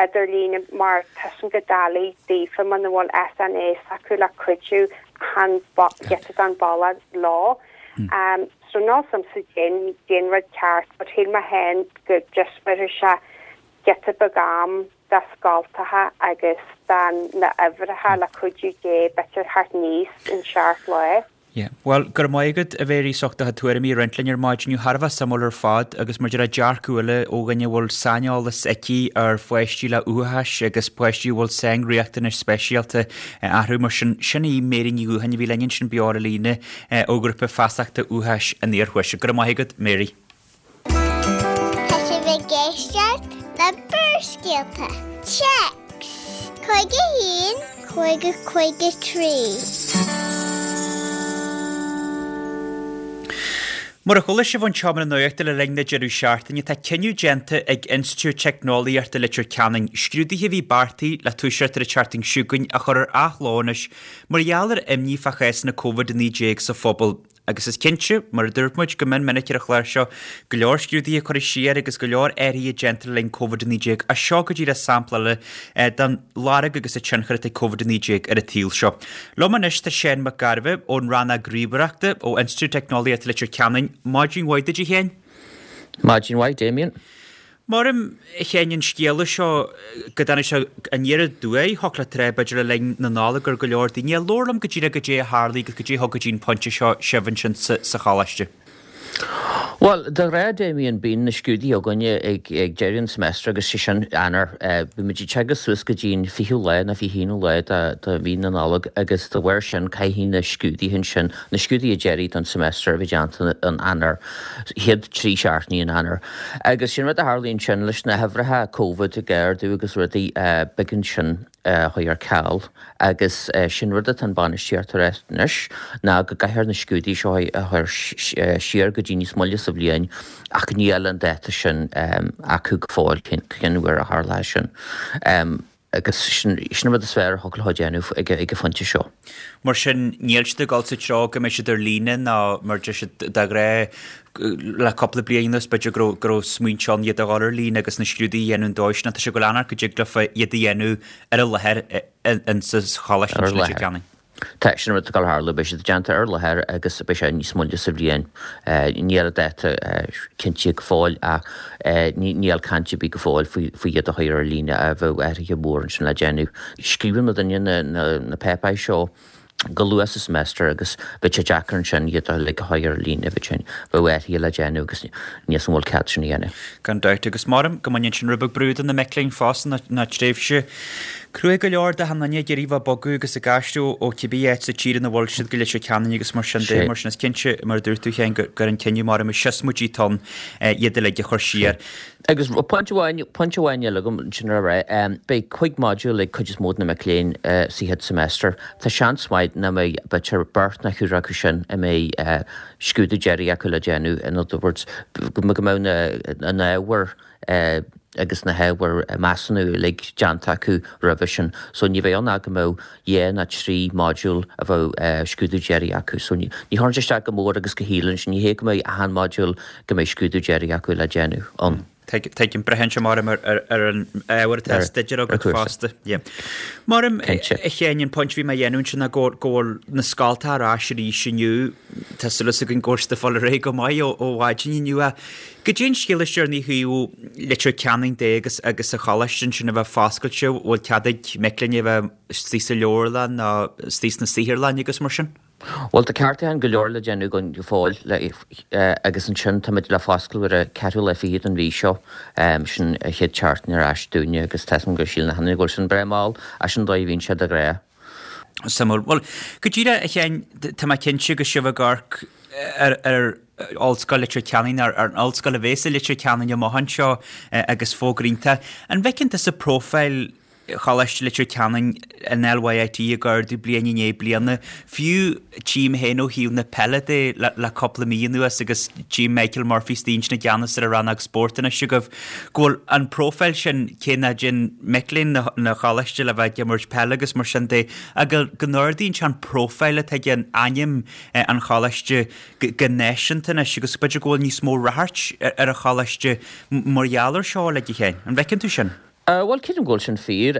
idirlíne mar tá sin go doiligh daofa muna bhfuil SNA s'acu le cuidiú achan giota den bhealach leo. So níl 's a'msa cén rud ceart but shíl mé féin go just bhéarfadh sé giota beag am do scoltacha agus do na uimhreacha le cuidiú Dé b'fhéidir theacht aníos in seacht lá. Yeah. Bhuel, go raibh maith agat, a Mhéirí, as ucht do chuid tuairimí a roinnt linn ar maidin inniu. Thar a bheith suimiúil ar fad agus mar a déarfá dearcadh eile ó dhuine a bhfuil saineolas aici ar pháistí le uathachas agus páistí a bhfuil sainriachtanais speisialta orthu. Mar sin, sin í Mary Ní Dhúcháin a bhí linn ansin beo ar an líne ó Ghrúpa Feasachta Uathachais an Iarthuaiscirt. Go raibh maith agat, Mary. Tá sibh ag éisteacht le Barrscéalta. Téacs. 51, 50, 53. Mar a chuala sibh ón tseomra nuachta le linn na deireadh seachtaine, tá cinneadh déanta ag Institiúid Teicneolaíochta Leitir Ceanainn scrúduithe a bhí beartaithe le toiseacht ar an tseachtain seo chugainn a chur ar athló anois mar gheall ar imní fá chásanna Covid-19 sa phobal. Agus is cinnte, mar a dúirt muid go mion minic ar an chlár seo, go leor scrúduithe curtha siar agus go leor athruithe déanta le linn Covid-19, ach seo go díreach sampla eile den lorg agus an tionchar atá ag Covid-19 ar an tsaol seo. Liom anois tá Seán Mac Gairbheith ón Rannóg Ríomhaireachta ó Institiúid Teicneolaíochta Leitir Ceanainn. Maidin mhaith duit a Sheáin. Maidin mhaith, Damien. Maram, a Sheáin, an scéala seo go dtáinig sé aniar aduaidh, thiocfadh leat a rá, b'fhéidir le linn na Nollag ar go leor daoine. Labhair liom go díreach goidé a tharlaigh agus goidé a thug go dtí an pointe seo sibh ansin sa choláiste. Bhuel, de ghnáth, Damien, bíonn na scrúduithe againne ag deireadh an semester agus sé sin Eanáir. Bíonn muid ag teagasc suas go dtí an fichiú lá nó 21ú lá de mhí na Nollag agus de bharr sin caithfidh na scrúduithe ansin, na scrúduithe deiridh don semester a bheith déanta in Eanáir, chéad trí seachtainí in Eanáir. Agus sin rud a tharlaíonn ansin leis na huimhreacha Covid ag ardú agus rudaí, b'éigean sin a chur ar ceal agus sin rud atá an bainistíocht a rá anois ná go gcaithfear na scrúduithe seo a chur siar go dtí níos moille sa bhliain ach níl an dáta sin acu go fóill cén uair a tharlóidh sin. Agus sin an rud is fearr a thiocfadh leo a dhéanamh ag an phointe seo. Mar sin, níl siad ag dul sa treo go mbeidh siad ar líne ná mar a deir siad de ghnáth le cúpla bliain anuas, b'fhéidir go raibh go raibh smaointe ann iad a dhul ar líne agus na scrúduithe a dhéanamh an dóigh sin ach tá sé ag dul amharc go dtig leofa iad a dhéanamh ar an láthair insa choláiste Ar an láthair. Tá, sin an rud atá ag dul a tharlú, beidh siad déanta ar láthair agus beidh sé níos moille sa bhliain. Níl an dáta cinnte go fóill ach níl caint ar bith go fóill faoi iad a chur ar líne ach bheadh athruithe mór ansin le déanamh. Scríobhann muidinne na páipéir seo go luath sa semester agus bheadh sé deacair ansin iad uilig a chur ar líne, bheadh sin, bheadh athruithe le déanamh agus níl 's agam an bhfuil cead sin a dhéanamh. Gan dabht, agus maram go mbaineann sin rud beag brú de na mic léinn fosta ná tréimhse cruaidh go leor d'achan duine ag iarraidh bheith ag bogadh agus ag aistriú ó cibé áit sa tír ina bhfuil siad go Leitir Ceanainn agus mar sin de, mar sin is cinnte, mar a dúirt tú féin, gur an cinneadh maram a siosmaidí atá ann iad uilig a chur siar. Agus pointe amháin, pointe amháin eile agam ansin a rá, beidh cuig modúl ag cuid is mó de na mic léinn sa chéad semester. Tá seans maith nach mbeidh b'fhéidir beirt nó ceathrar acu sin a mbeidh scrúdú deiridh acu le déanamh, in other words, go mbeadh na hábhair agus na hábhair measúnú uilig déanta acu roimhe sin. So ní bheidh ann ach go mbeadh dhá nó trí modúl a bheadh scrúdú deiridh acu. So ní chuireann sé isteach go mór agus go shíleann sé, ní hé go mbeidh achan modúl go mbeidh scrúdú deiridh acu le déanamh ann. Tuigim, braitheann sé maram ar an ábhar atá á staidéar agat fosta. Maram, a Sheáin, an pointe a bhí mé a dhéanamh ansin ná go bhfuil na scoltacha ar ais arís inniu. Tá súil againn go bhfuil siad ag fáil ar aghaidh go maith ó mhaidin inniu. Ach goidé an scéal is deireanaí ó thaobh Leitir Ceanainn de agus agus an choláiste ansin a bheith foscailte, bhfuil cead ag mic léinn a bheith istigh sa leabharlann nó istigh sna saotharlanna agus mar sin? Bhuel, tá ceartúcháin go leor le déanamh againn go fóill agus ansin táimid le foscladh ar an ceathrú lá fichead den mhí seo, sin an chéad tseachtain ar ais dúinne agus tá 'fhios agam go síleann achan duine go bhfuil sin breá mall, ach sin an dóigh a bhíonn sé de ghnáth. Suimiúil. Bhuel, go díreach, a Sheáin, tá mé cinnte go sibh ag amharc ar ar Ollscoil Leitir Ceanainn, ar an ollscoil a bhéas i Leitir Ceanainn amach anseo agus fógra iontach. An bhfeiceann tusa profile Choláiste Leitir Ceanainn, an LYIT, ag ardú bliain i ndiaidh bliana, fiú tchím féin ó thaobh na peile de le cúpla mí anuas agus tchím Michael Murphy istigh ansin i gceannas ar an rannóg spóirt anois agaibh, go bhfuil an profile sin, cé nach dtéann mic léinn na choláiste le bheith ag imirt peile agus mar sin de, ach go n-ardaíonn sé an profile atá ag an ainm an choláiste go náisiúnta anois agus b'fhéidir go bhfuil níos mó ráchairt ar an choláiste mar gheall ar seo, uilig, a Sheáin. An bhfeiceann tú sin? Bhuel, creidim go bhfuil sin fíor.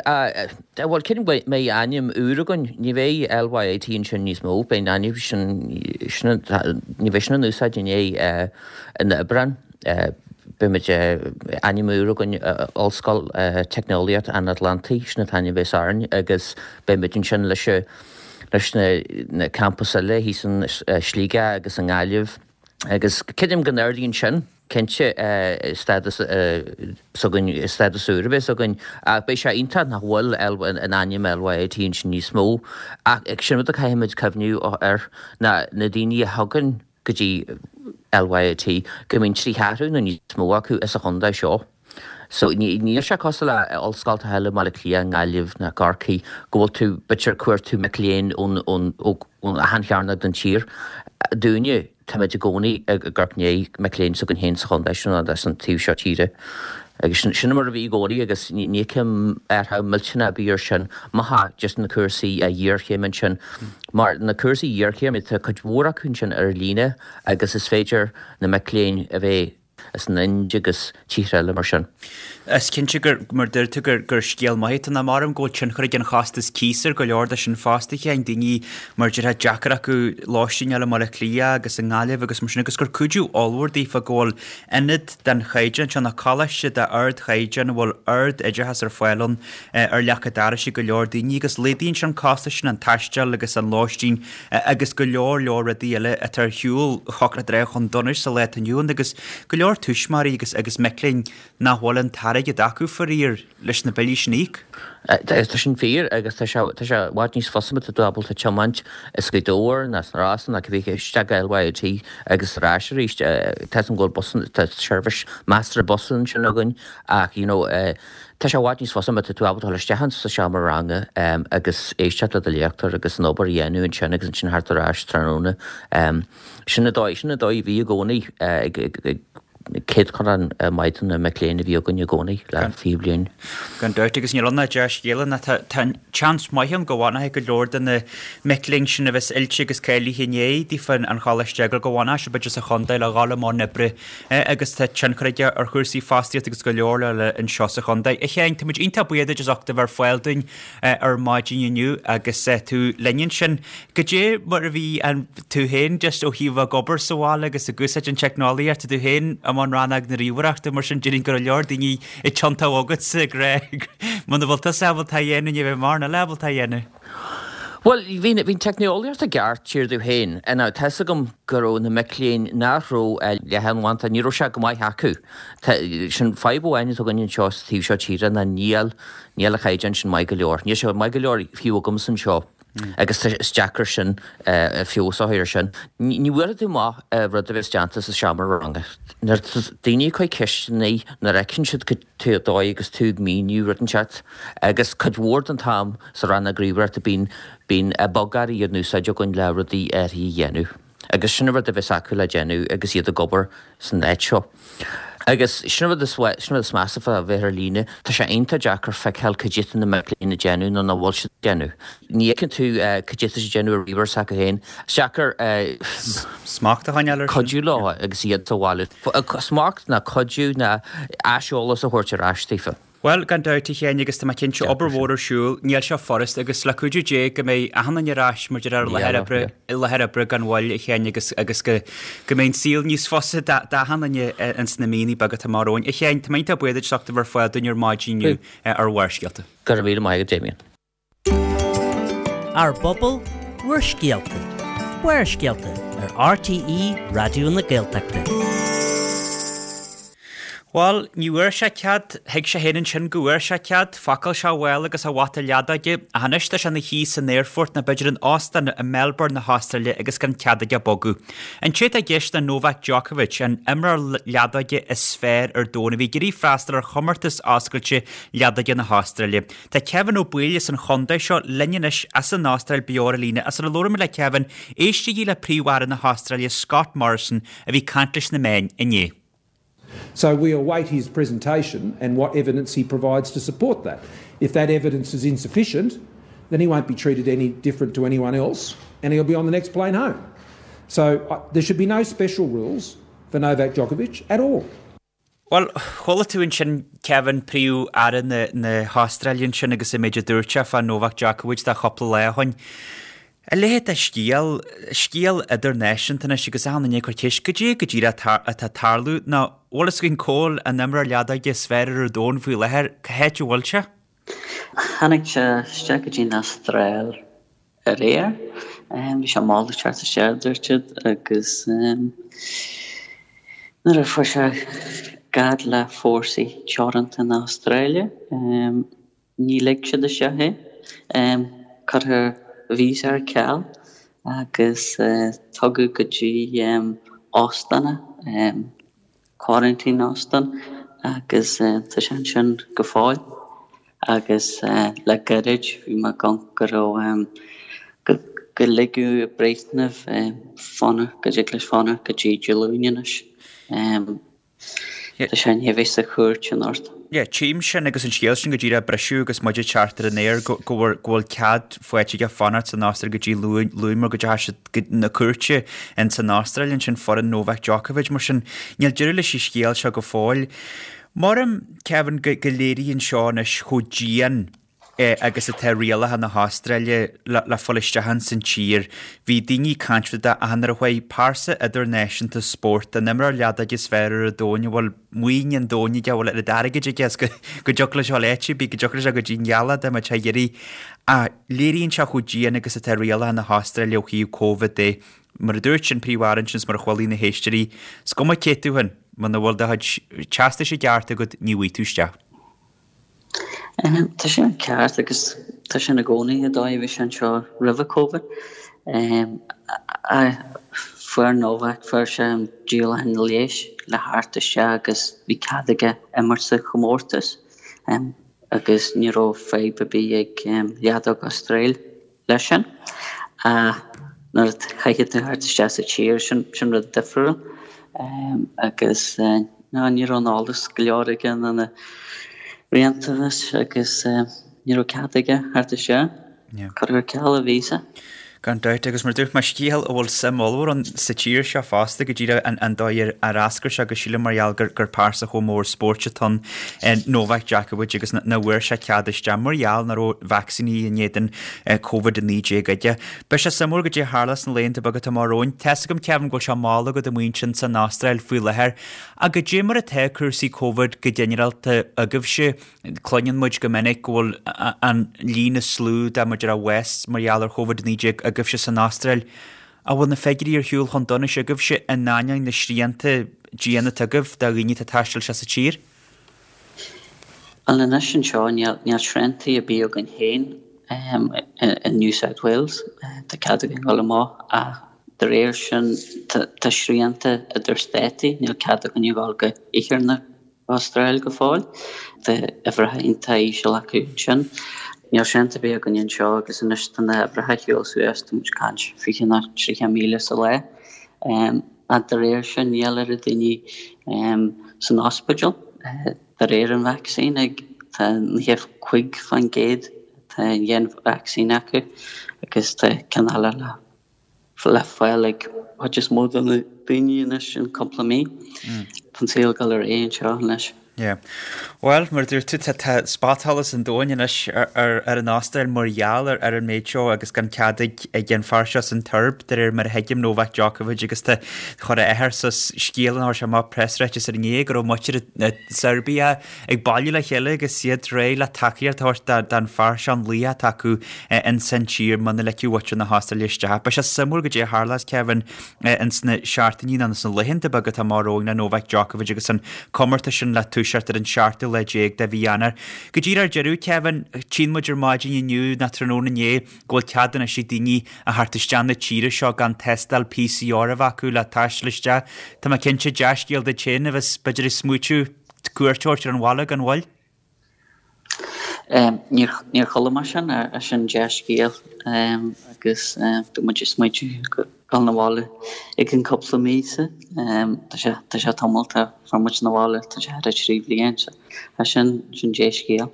Bhuel, creidim go mbeidh ainm úr againn. Ní bheidh LYIT ansin níos mó. Beidh an ainm sin, sin, ní bheidh sin in úsáid i ndiaidh an Aibreán. Beimid, ainm úr againn, Ollscoil Teicneolaíocht an Atlantaigh, sin an t-ainm a bheas orainn agus beimid ansin leis, leis na campais eile thíos in Sligeach agus i nGaillimh agus creidim go n-ardaíonn sin. Cinnte, stádas s'againn, stádas úr a bheas againn, ach beidh sé iontach nach bhfuil an ainm LYIT ansin níos mó. Ach sin rud a caithfimid cuimhniú air, ná na daoine a thagann go dtí LYIT, go mbíonn trí cheathrú nó níos mó acu as an chontae seo. So níl sé cosúil le ollscoltacha eile i mBaile Átha Cliath, i nGaillimh ná Corcaigh go bhfuil tú b'fhéidir ag cuartú mic léinn ón ón ó achan chearnóg den tír. Dúinne, táimid i gcónaí ag amharc i ndiaidh mic léinn s'againn féin sa chontae seo nó san taobh seo tíre. Agus sin sin mar a bhí i gcónaí agus ní ní fheicim athrú millteanach ar bith ar sin má thá just na cúrsaí iarchéime ansin. Mar na cúrsaí iarchéime tá cuid mhór acu ansin ar líne agus is féidir na mic léinn a bheith as an Ind agus tíortha eile mar sin. Is cinnte gur, mar deir tú, gur, gur scéal maith atá ann. Maram go bhfuil tionchar ag an chostas cíos ar go leor de sin fosta, a Sheáin, daoine mar déarfá deacair acu lóistín a fháil i mBaile Átha Cliath agus i nGaillimh agus mar sin agus gur cuidiú ollmhór daofa go bhfuil ionad den chaighdeán seo, nó coláiste d'ardchaighdeán a bhfuil ard-oideachas ar fáil ann ar leac an dorais ag go leor daoine agus laghdaíonn sé an costas sin, an taisteal agus an lóistín agus go leor leor rudaí eile atá ar shiúl thiocfadh leat a rá chun donais sa lá atá inniu ann agus go leor tuismitheoirí agus agus mic léinn nach bhfuil an t-airgead acu faraor leis na billí sin a íoc. Tá sin fíor agus tá sé tá sé i bhfad níos fusa má tá tú ábalta tiomáint as Gaoth Dobhair nó as na Rosann nó cibé isteach go LYIT agus ar ais arís. Tá 'fhios a'm go bhfuil bus tá seirbhís measartha bus ansin againn ach you know Tá sé i bhfad níos fusa má tá tú ábalta dul isteach sa seomra ranga agus éisteacht le do léachtóir agus an obair a dhéanamh ansin agus ansin theacht ar ais tráthnóna. Sin an dóigh, sin an dóigh a bhí i gcónaí ag céatadán maith de na mic léinn a bhí againn i gcónaí le 20 bliain. Gan dabht, agus níl ann ach dea-scéala ná tá tá seans maith ann go bhfanfaidh go leor de na mic léinn sin a bheas oilte agus cáilithe i ndiaidh daofa an choláiste a fhágáil go bhfanfaidh siad b'fhéidir sa chontae le dhul i mbun oibre agus tá tionchar aige ar chúrsaí fostaíochta agus go leor eile anseo sa chontae. A Sheáin, tá muid iontach buíoch duit as ucht a bheith ar fáil dúinn ar maidin inniu agus tú linn ansin. Goidé mar a bhí an tú féin just ó thaobh ag obair sa bhaile agus ag úsáid an teicneolaíocht, tá tú féin i mbun rannóg na ríomhaireachta mar sin déarfainn go raibh leor daoine ag tiontú chugatsa ag rá muna bhfuil tusa ábalta a dhéanamh ní bheidh mórán eile ábalta a dhéanamh. Bhuel, bhí bhí an teicneolaíocht i gceart thiar domh féin. Now, tá 'fhios agam go raibh na mic léinn nach raibh leathanbhanda, ní raibh sé go maith acu. Tá, sin fadhb amháin atá againn anseo sa taobh seo tíre ná níl, níl an chaighdeán sin maith go leor. Níl sé maith go leor fiú agamsa anseo agus tá, is deacair sin, feabhas a chur air sin. Ní bhuailfidh tú amach rud a bheas déanta sa seomra ranga. Nuair atá daoine ag cur ceisteanna, nuair a fheiceann siad cad é dóigh agus tú ag míniú rud inteacht agus cuid mhór den t-am sa rannóg ríomhaireachta bíonn bíonn bogearraí in úsáid againn le rudaí áirithe a dhéanamh agus sin an rud a bheas acu le déanamh agus iad ag obair san áit seo. Agus sin an rud is sin an rud is measa fá bheith ar líne, tá sé iontach deacair feiceáil cad é atá na mic léinn ag déanamh nó nach bhfuil siad ag déanamh. Ní fheiceann tú cad é atá siad ag déanamh ar ríomhaire s'acu féin. Is deacair Smacht a choinneáil air sin. cuidiú leo agus iad sa bhaile. Smacht ná cuidiú ná aiseolas a thabhairt ar ais daofa. Bhuel, gan dabht, a Sheáin, agus tá mé cinnte, obair mhór ar siúl, níl sé furast, agus le cuidiú Dé go mbeidh achan duine ar ais mar déarfá ar láthair oibre, i láthair oibre gan mhoill, a Sheáin, agus, agus go, go mbeidh an saol níos fusa d'achan duine ins na míonna beaga atá amach romhainn. A Sheáin, tá mé iontach buíoch duit as ucht a bheith ar fáil dúinn ar maidin inniu ar Bharrscéalta. Go raibh míle maith agat, Damien. Ár bpobal, bhur scéalta. Barrscéalta ar RTÉ Raidió na Gaeltachta. Bhuel, ní bhfuair sé cead, thuig sé féin ansin go bhfuair sé cead, phacáil sé a mhála agus a bhata leadóige, ach anois tá sé ina shuí san aerfort nó b'fhéidir in óstán i Melbourne na hAstráile agus gan cead aige bogadh. An té atá i gceist ná Novak Djokovic, an imreoir leadóige is fearr ar domhan a bhí ag iarraidh freastal ar chomórtas oscailte leadóige na hAstráile. Tá Kevin Ó Baoill as an chontae seo linn anois as an Astráil beo ar an líne. Sula labhraímid le Kevin, éistigí le Príomh-Aire na hAstráile Scott Morrison a bhí ag caint leis na meáin inné. So we await his presentation and what evidence he provides to support that. If that evidence is insufficient, then he won't be treated any different to anyone else and he'll be on the next plane home. So uh, there should be no special rules for Novak Djokovic at all. Bhuel, chuala tú ansin Kevin, Príomh-Aire na hAstráile ansin agus an méid a dúirt sé fá Novak Djokovic de chúpla lá ó shoin. A leithéid de scéal, scéal idirnáisiúnta anois agus achan duine ag cur ceist goidé go díreach atá ag tarlú nó bhfuil fhios againn cá bhfuil an imreoir leadóige is fearr ar an domhan faoi láthair, cá háit a bhfuil sé? Tháinig sé isteach go dtí an Astráil aréir. Bhí sé mall ag teacht isteach, a dúirt siad, agus nuair a fuair sé gar le fórsaí teoranta na hAstráile, ní lig siad isteach é. Cuireadh a visa ar ceal agus tugadh go dtí óstán é, quarantine óstán. agus tá sé ansin go fóill agus le gairid bhí mé ag amharc go raibh go ligeadh breitheamh fanacht, go dtig leis fanacht go dtí Dé Luain anois. Tá sé i ndiaidh a bheith sa chúirt anocht. Yeah, tchím sin agus an scéal sin go díreach briseadh agus muid ag teacht ar an aer go go bhfuil go bhfuil cead faighte aige fanacht san Astráil go dtí Luan Luan mar go dteachaigh siad go na cúirte in san Astráil ansin foireann Novak Djokovic mar sin níl deireadh leis an scéal seo go fóill. Maram Kevin go go léiríonn seo anois chomh dian agus atá rialacha na hAstráile le fáil isteach ins an tír. Bhí daoine ag caint fá dtaobh de achan uair a chuaigh pearsa idirnáisiúnta spóirt, an imreoir leadóige is fearr ar an domhan, a bhfuil maoin an domhain aige, a bhfuil oiread airgid aige is go dtiocfadh leis a dhul áit ar bith, go dtiocfadh leis a dhul go dtí an ghealach dá mbeadh sé á iarraidh. Ach léiríonn sé chomh dian agus atá rialacha na hAstráile ó thaobh Covid de. Mar a dúirt an Príomh-Aire ansin is mar a chualaigh na héisteoirí, is cuma cé tú féin, muna bhfuil do chuid teastais i gceart agat, ní bhfaighidh tú isteach. Tá sin ceart agus tá sin i gcónaí an dóigh a bhí sé anseo roimhe Covid. Fuair Novak, fuair sé an díolachán leighis le theacht isteach agus bhí cead aige imirt sa chomórtas agus ní raibh fadhb ar bith ag Leadóg Astráil. leis sin. Ach nuair a chaithfidh tú theacht isteach sa tír, sin, sin rud difriúil. Agus ná, ní raibh an eolas go leor aige ná na rialtais agus ní raibh cead aige theacht isteach. Cuireadh ar ceal a víosa. Gan dabht, agus mar a dúirt mé, scéal a bhfuil suim ollmhór ann sa tír seo fosta, go díreach an dóigh ar eascair sé agus sílim mar gheall gur pearsa chomh mór spóirt atá ann, Novak Djokovic agus nach bhfuair sé cead isteach mar gheall nach raibh vacsaíní in éadan Covid-19 aige. Beidh sé suimiúil goidé a tharlós sna laethanta beaga atá amach romhainn. Tá's agam, Kevin, go bhfuil sé mall agat amuigh ansin san Astráil faoi láthair. Ach goidé mar atá cúrsaí Covid go ginearálta agaibhse? Cluineann muid go minic go bhfuil an líon is lú de mar a déarfá bás mar gheall ar Covid-19 agaibhse san Astráil. An bhfuil na figiúirí ar shiúl chun donais agaibhse in ainneoin na srianta diana atá agaibh do dhaoine atá ag taisteal isteach sa tír? Bhuel anois anseo níl níl sriantaí ar bith againn féin i New South Wales. Tá cead againn dul amach ach de réir sin tá srianta idir státaí, níl cead againn a dhul go iarthar na hAstráile go fóill. Tá uimhreacha iontach íseal acu ansin. Níl srianta ar bith againn anseo agus anois tá na huimhreacha ag siúl suas, tá muid ag caint 20 nó 30,000 sa lá. Ach de réir sin níl oiread daoine san ospidéal de réir an vacsaín ag tá 95% atá an dhéan vacsaín acu agus tá ceann eile le le fáil ag chuid is mó de na daoine anois in cúpla mí. Tá an saol ag dul ar aghaidh anseo anois. Yeah. Bhuel, mar a dúirt tú, tá tá spotsholas an domhain anois ar ar ar an Astráil mar gheall ar ar an méid seo agus gan cead ag ag an fear seo san tSeirbia, de réir mar a thuigim, Novak Djokovic agus tá chuir a athair suas scéal an chuir sé amach preasráiteas ar inné go raibh muintir na Seirbia ag bailiú le chéile agus iad réidh le tacaíocht a thabhairt don fear seo an laoch atá acu ins an tír muna ligfeadh muintir na hAstráile isteach. Beidh sé suimiúil goidé a tharlós, Kevin, ins na seachtainí nó ins na laethanta beaga atá amach romhainn le Novak Djokovic agus an comórtas sin le toiseacht ar an seachtú lá déag de mhí Eanáir. Go díreach ar deireadh, Kevin, tchíonn muid ar maidin inniu nó tráthnóna inné go bhfuil cead anois ag daoine a theacht isteach na tíre seo gan tástáil PCR a bheith acu le taisteal isteach. Tá mé cinnte, dea-scéal duit féin a bheas b'fhéidir ag smaoitiú cuairt a thabhairt ar an bhaile gan mhoill. Níor níor chuala mé sin, sin dea-scéal agus tá muid ag smaoitiú dul na bhaile i gcionn cúpla míosa. Tá sé tá sé tamall ó fuair muid na bhaile, tá sé thar 3 bhliain, so sin sin dea-scéal.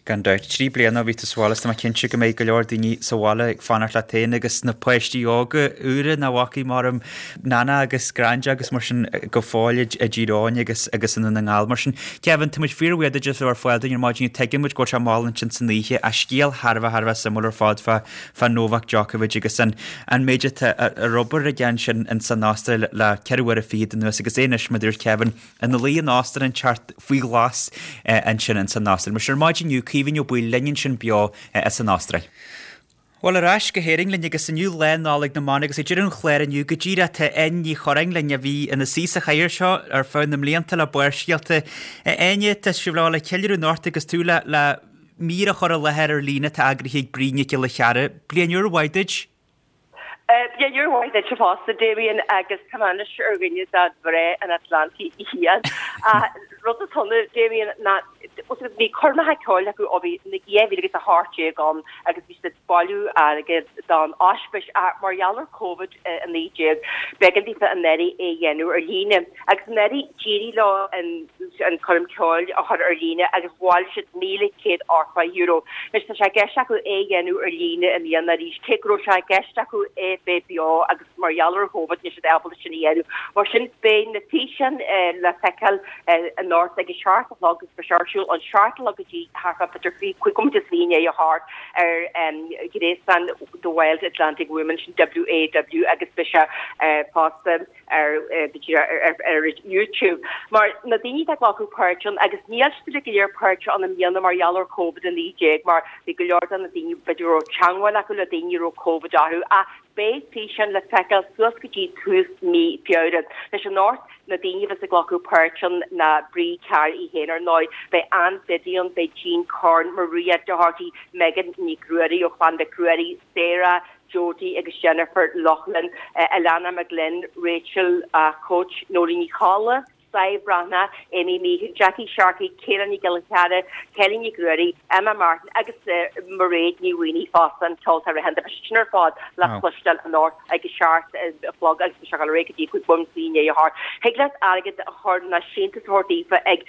Gan dabht. 3 bliana ó bhí tú sa bhaile is tá mé cinnte go mbeidh go leor daoine sa bhaile ag fanacht leat féin agus na páistí óga úra nach bhfacaidh maram Nana agus Granda agus mar sin go fóill i dTír Eoghain agus agus i nDún na nGall mar sin. Kevin, tá muid fíorbhuíoch duit as a bheith ar fáil dúinn ar maidin. Tuigeann muid go bhfuil sé mall ansin san oíche ach scéal thar a bheith thar a bheith suimiúil ar fad fá fá Novak Djokovic agus an an méid atá ar obair aige ansin in san Astráil le 4 uaire fichead anuas agus é anois mar a dúirt Kevin ina luí in óstán inteacht faoi ghlas ansin ins an Astráil. Mar sin ar maidin inniu, Caoimhín Ó Baoill linn ansin beo as an Astráil. Bhuel, ar ais go hÉirinn linn agus inniu Lá Nollag na mBan agus ag deireadh an chláir inniu go díreach tá Áine Ní Churráin linn a bhí ina suí sa chathaoir seo ar feadh na mblianta le Barrscéalta. A Áine, tá sibh le le ceiliúradh anocht agus tú le le mír a chur i láthair ar líne atá eagraithe ag Bríd Nic Giolla Chearra. Bliain úr mhaith duit! Bliain úr mhaith duitse fosta, Damien, agus tá mé anois ar dhuine de mhná an Atlantaigh Fhiáin. Rud is ionadh, Damien, ná bhí coirmeacha ceoil acu ó bhí 2018 ann agus bhí siad ag bailiú airgid don ospís ach mar gheall ar Covid-19 b'éigean daofa anuraidh é a dhéanamh ar líne. Agus anuraidh d'éirigh leo an coirm ceoil a chur ar líne agus bhailigh siad €1,180. Anois tá sé i gceist acu é a dhéanamh ar líne i mbliana arís, cé go raibh sé i gceist acu é bheith beo agus mar gheall ar Chóvid níl siad ábalta sin a dhéanamh. Mar sin beidh na físeáin le feiceáil anocht ag a seacht a chlog agus beidh sé ar siúl ón seacht a chlog go dtí thart fá b'fhéidir cúig bhomaite is i ndiaidh a hocht ar ghréasán The Wild Atlantic Women, sin WAW agus beidh sé fosta. ar ar YouTube mar na daoine atá ag glacadh páirt ann agus níl siad uilig go léir páirteach ann i mbliana mar gheall ar Covid-19 mar bhí go leor de na daoine b'fhéidir go raibh teangmháil acu le daoine a raibh Covid orthu ach beidh físeáin le feiceáil suas go dtí tús mí Feabhra. Anois anocht na daoine a bheas ag glacadh páirt ann ná Brie Carr í féin ar ndóigh, beidh Ann Biddy ann, beidh Jean Corn, Maria Doherty, Megan Nic Ruairí ó Chlann Mhic Ruairí, Sarah, Jodie agus Jennifer Loughlin, Alana McGlynn, Rachel Coach, Noeleen Ní Cholla, Sadhbh Breathnach, Amy Meehan, Jackie Sharkey, Kayla Ní Ghiolla Chearra, Kelly Nic Ruairí, Emma Martin agus Mairéad Ní Mhaonaigh fosta, an ceoltóir aitheanta. Beidh siad sin ar fad le cloisteáil anocht ag a seacht a chlog agus beidh sé ag dul ar aghaidh go dtí 5 bomaite i ndiaidh a hocht. Thig leat airgead a chur nó síntiús a thabhairt daofa ag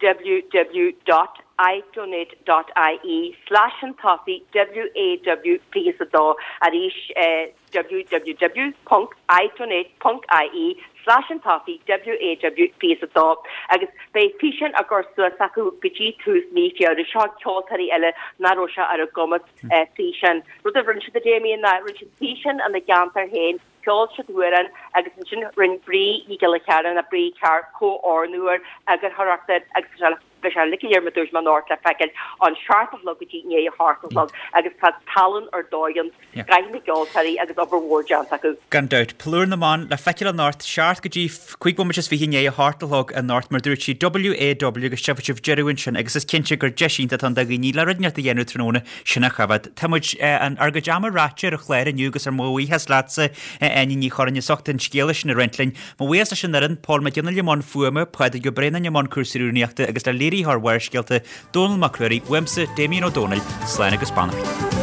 www dot idonate dot ie slash chun tosaigh WAW 22 arís www ponc idonate ponc ie slash chun tosaigh WAW 22 agus beidh físeáin á gcur suas acu go dtí tús mí Feabhra. Seo ceoltóirí eile nach raibh sé ar a gcumas físeáin. Rud a rinne siad a Damien ná rinne siad físeáin ina gceantar féin Cheol siad amhrán agus ansin rinne Brí Ní Ghiolla Chearra nó Brí Carr comhordú air, eagarthóireacht air agus tá sé beidh sé uilig go léir mar dúirt mé anocht le feiceáil ón seacht a chlog go dtí i ndiaidh a hocht a chlog agus tá tallann ar dóigh ann, scoth na gceoltóirí agus obair mhór déanta acu. Gan dabht. Plúr na mBan le feiceáil anocht, seacht go dtí cúig bhomaite is fiche i ndiaidh a hocht a chlog anocht mar dúirt sí WAW agus tchífidh sibh deireadh ansin agus is cinnte gur deis iontach atá ann do dhaoine le rud inteacht a dhéanamh tráthnóna sin a choimhéad. Tá muid, ár gcuid ama ráite ar an chlár inniu agus ár mo bhuíochas leatsa, a Áine Ní Churráin, as ucht an scéala sin a roinnt linn. Mo bhuíochas leis an fhoireann, Pól Mac Fhionnghaile i mbun fuaime, Pádraig Ó Braonáin i mbun cúrsaí rúnaíochta agus le léiritheoir Bharrscéalta, Dónall Mac Ruairí, uaimse, Damien Ó Dónaill, slán agus beannacht.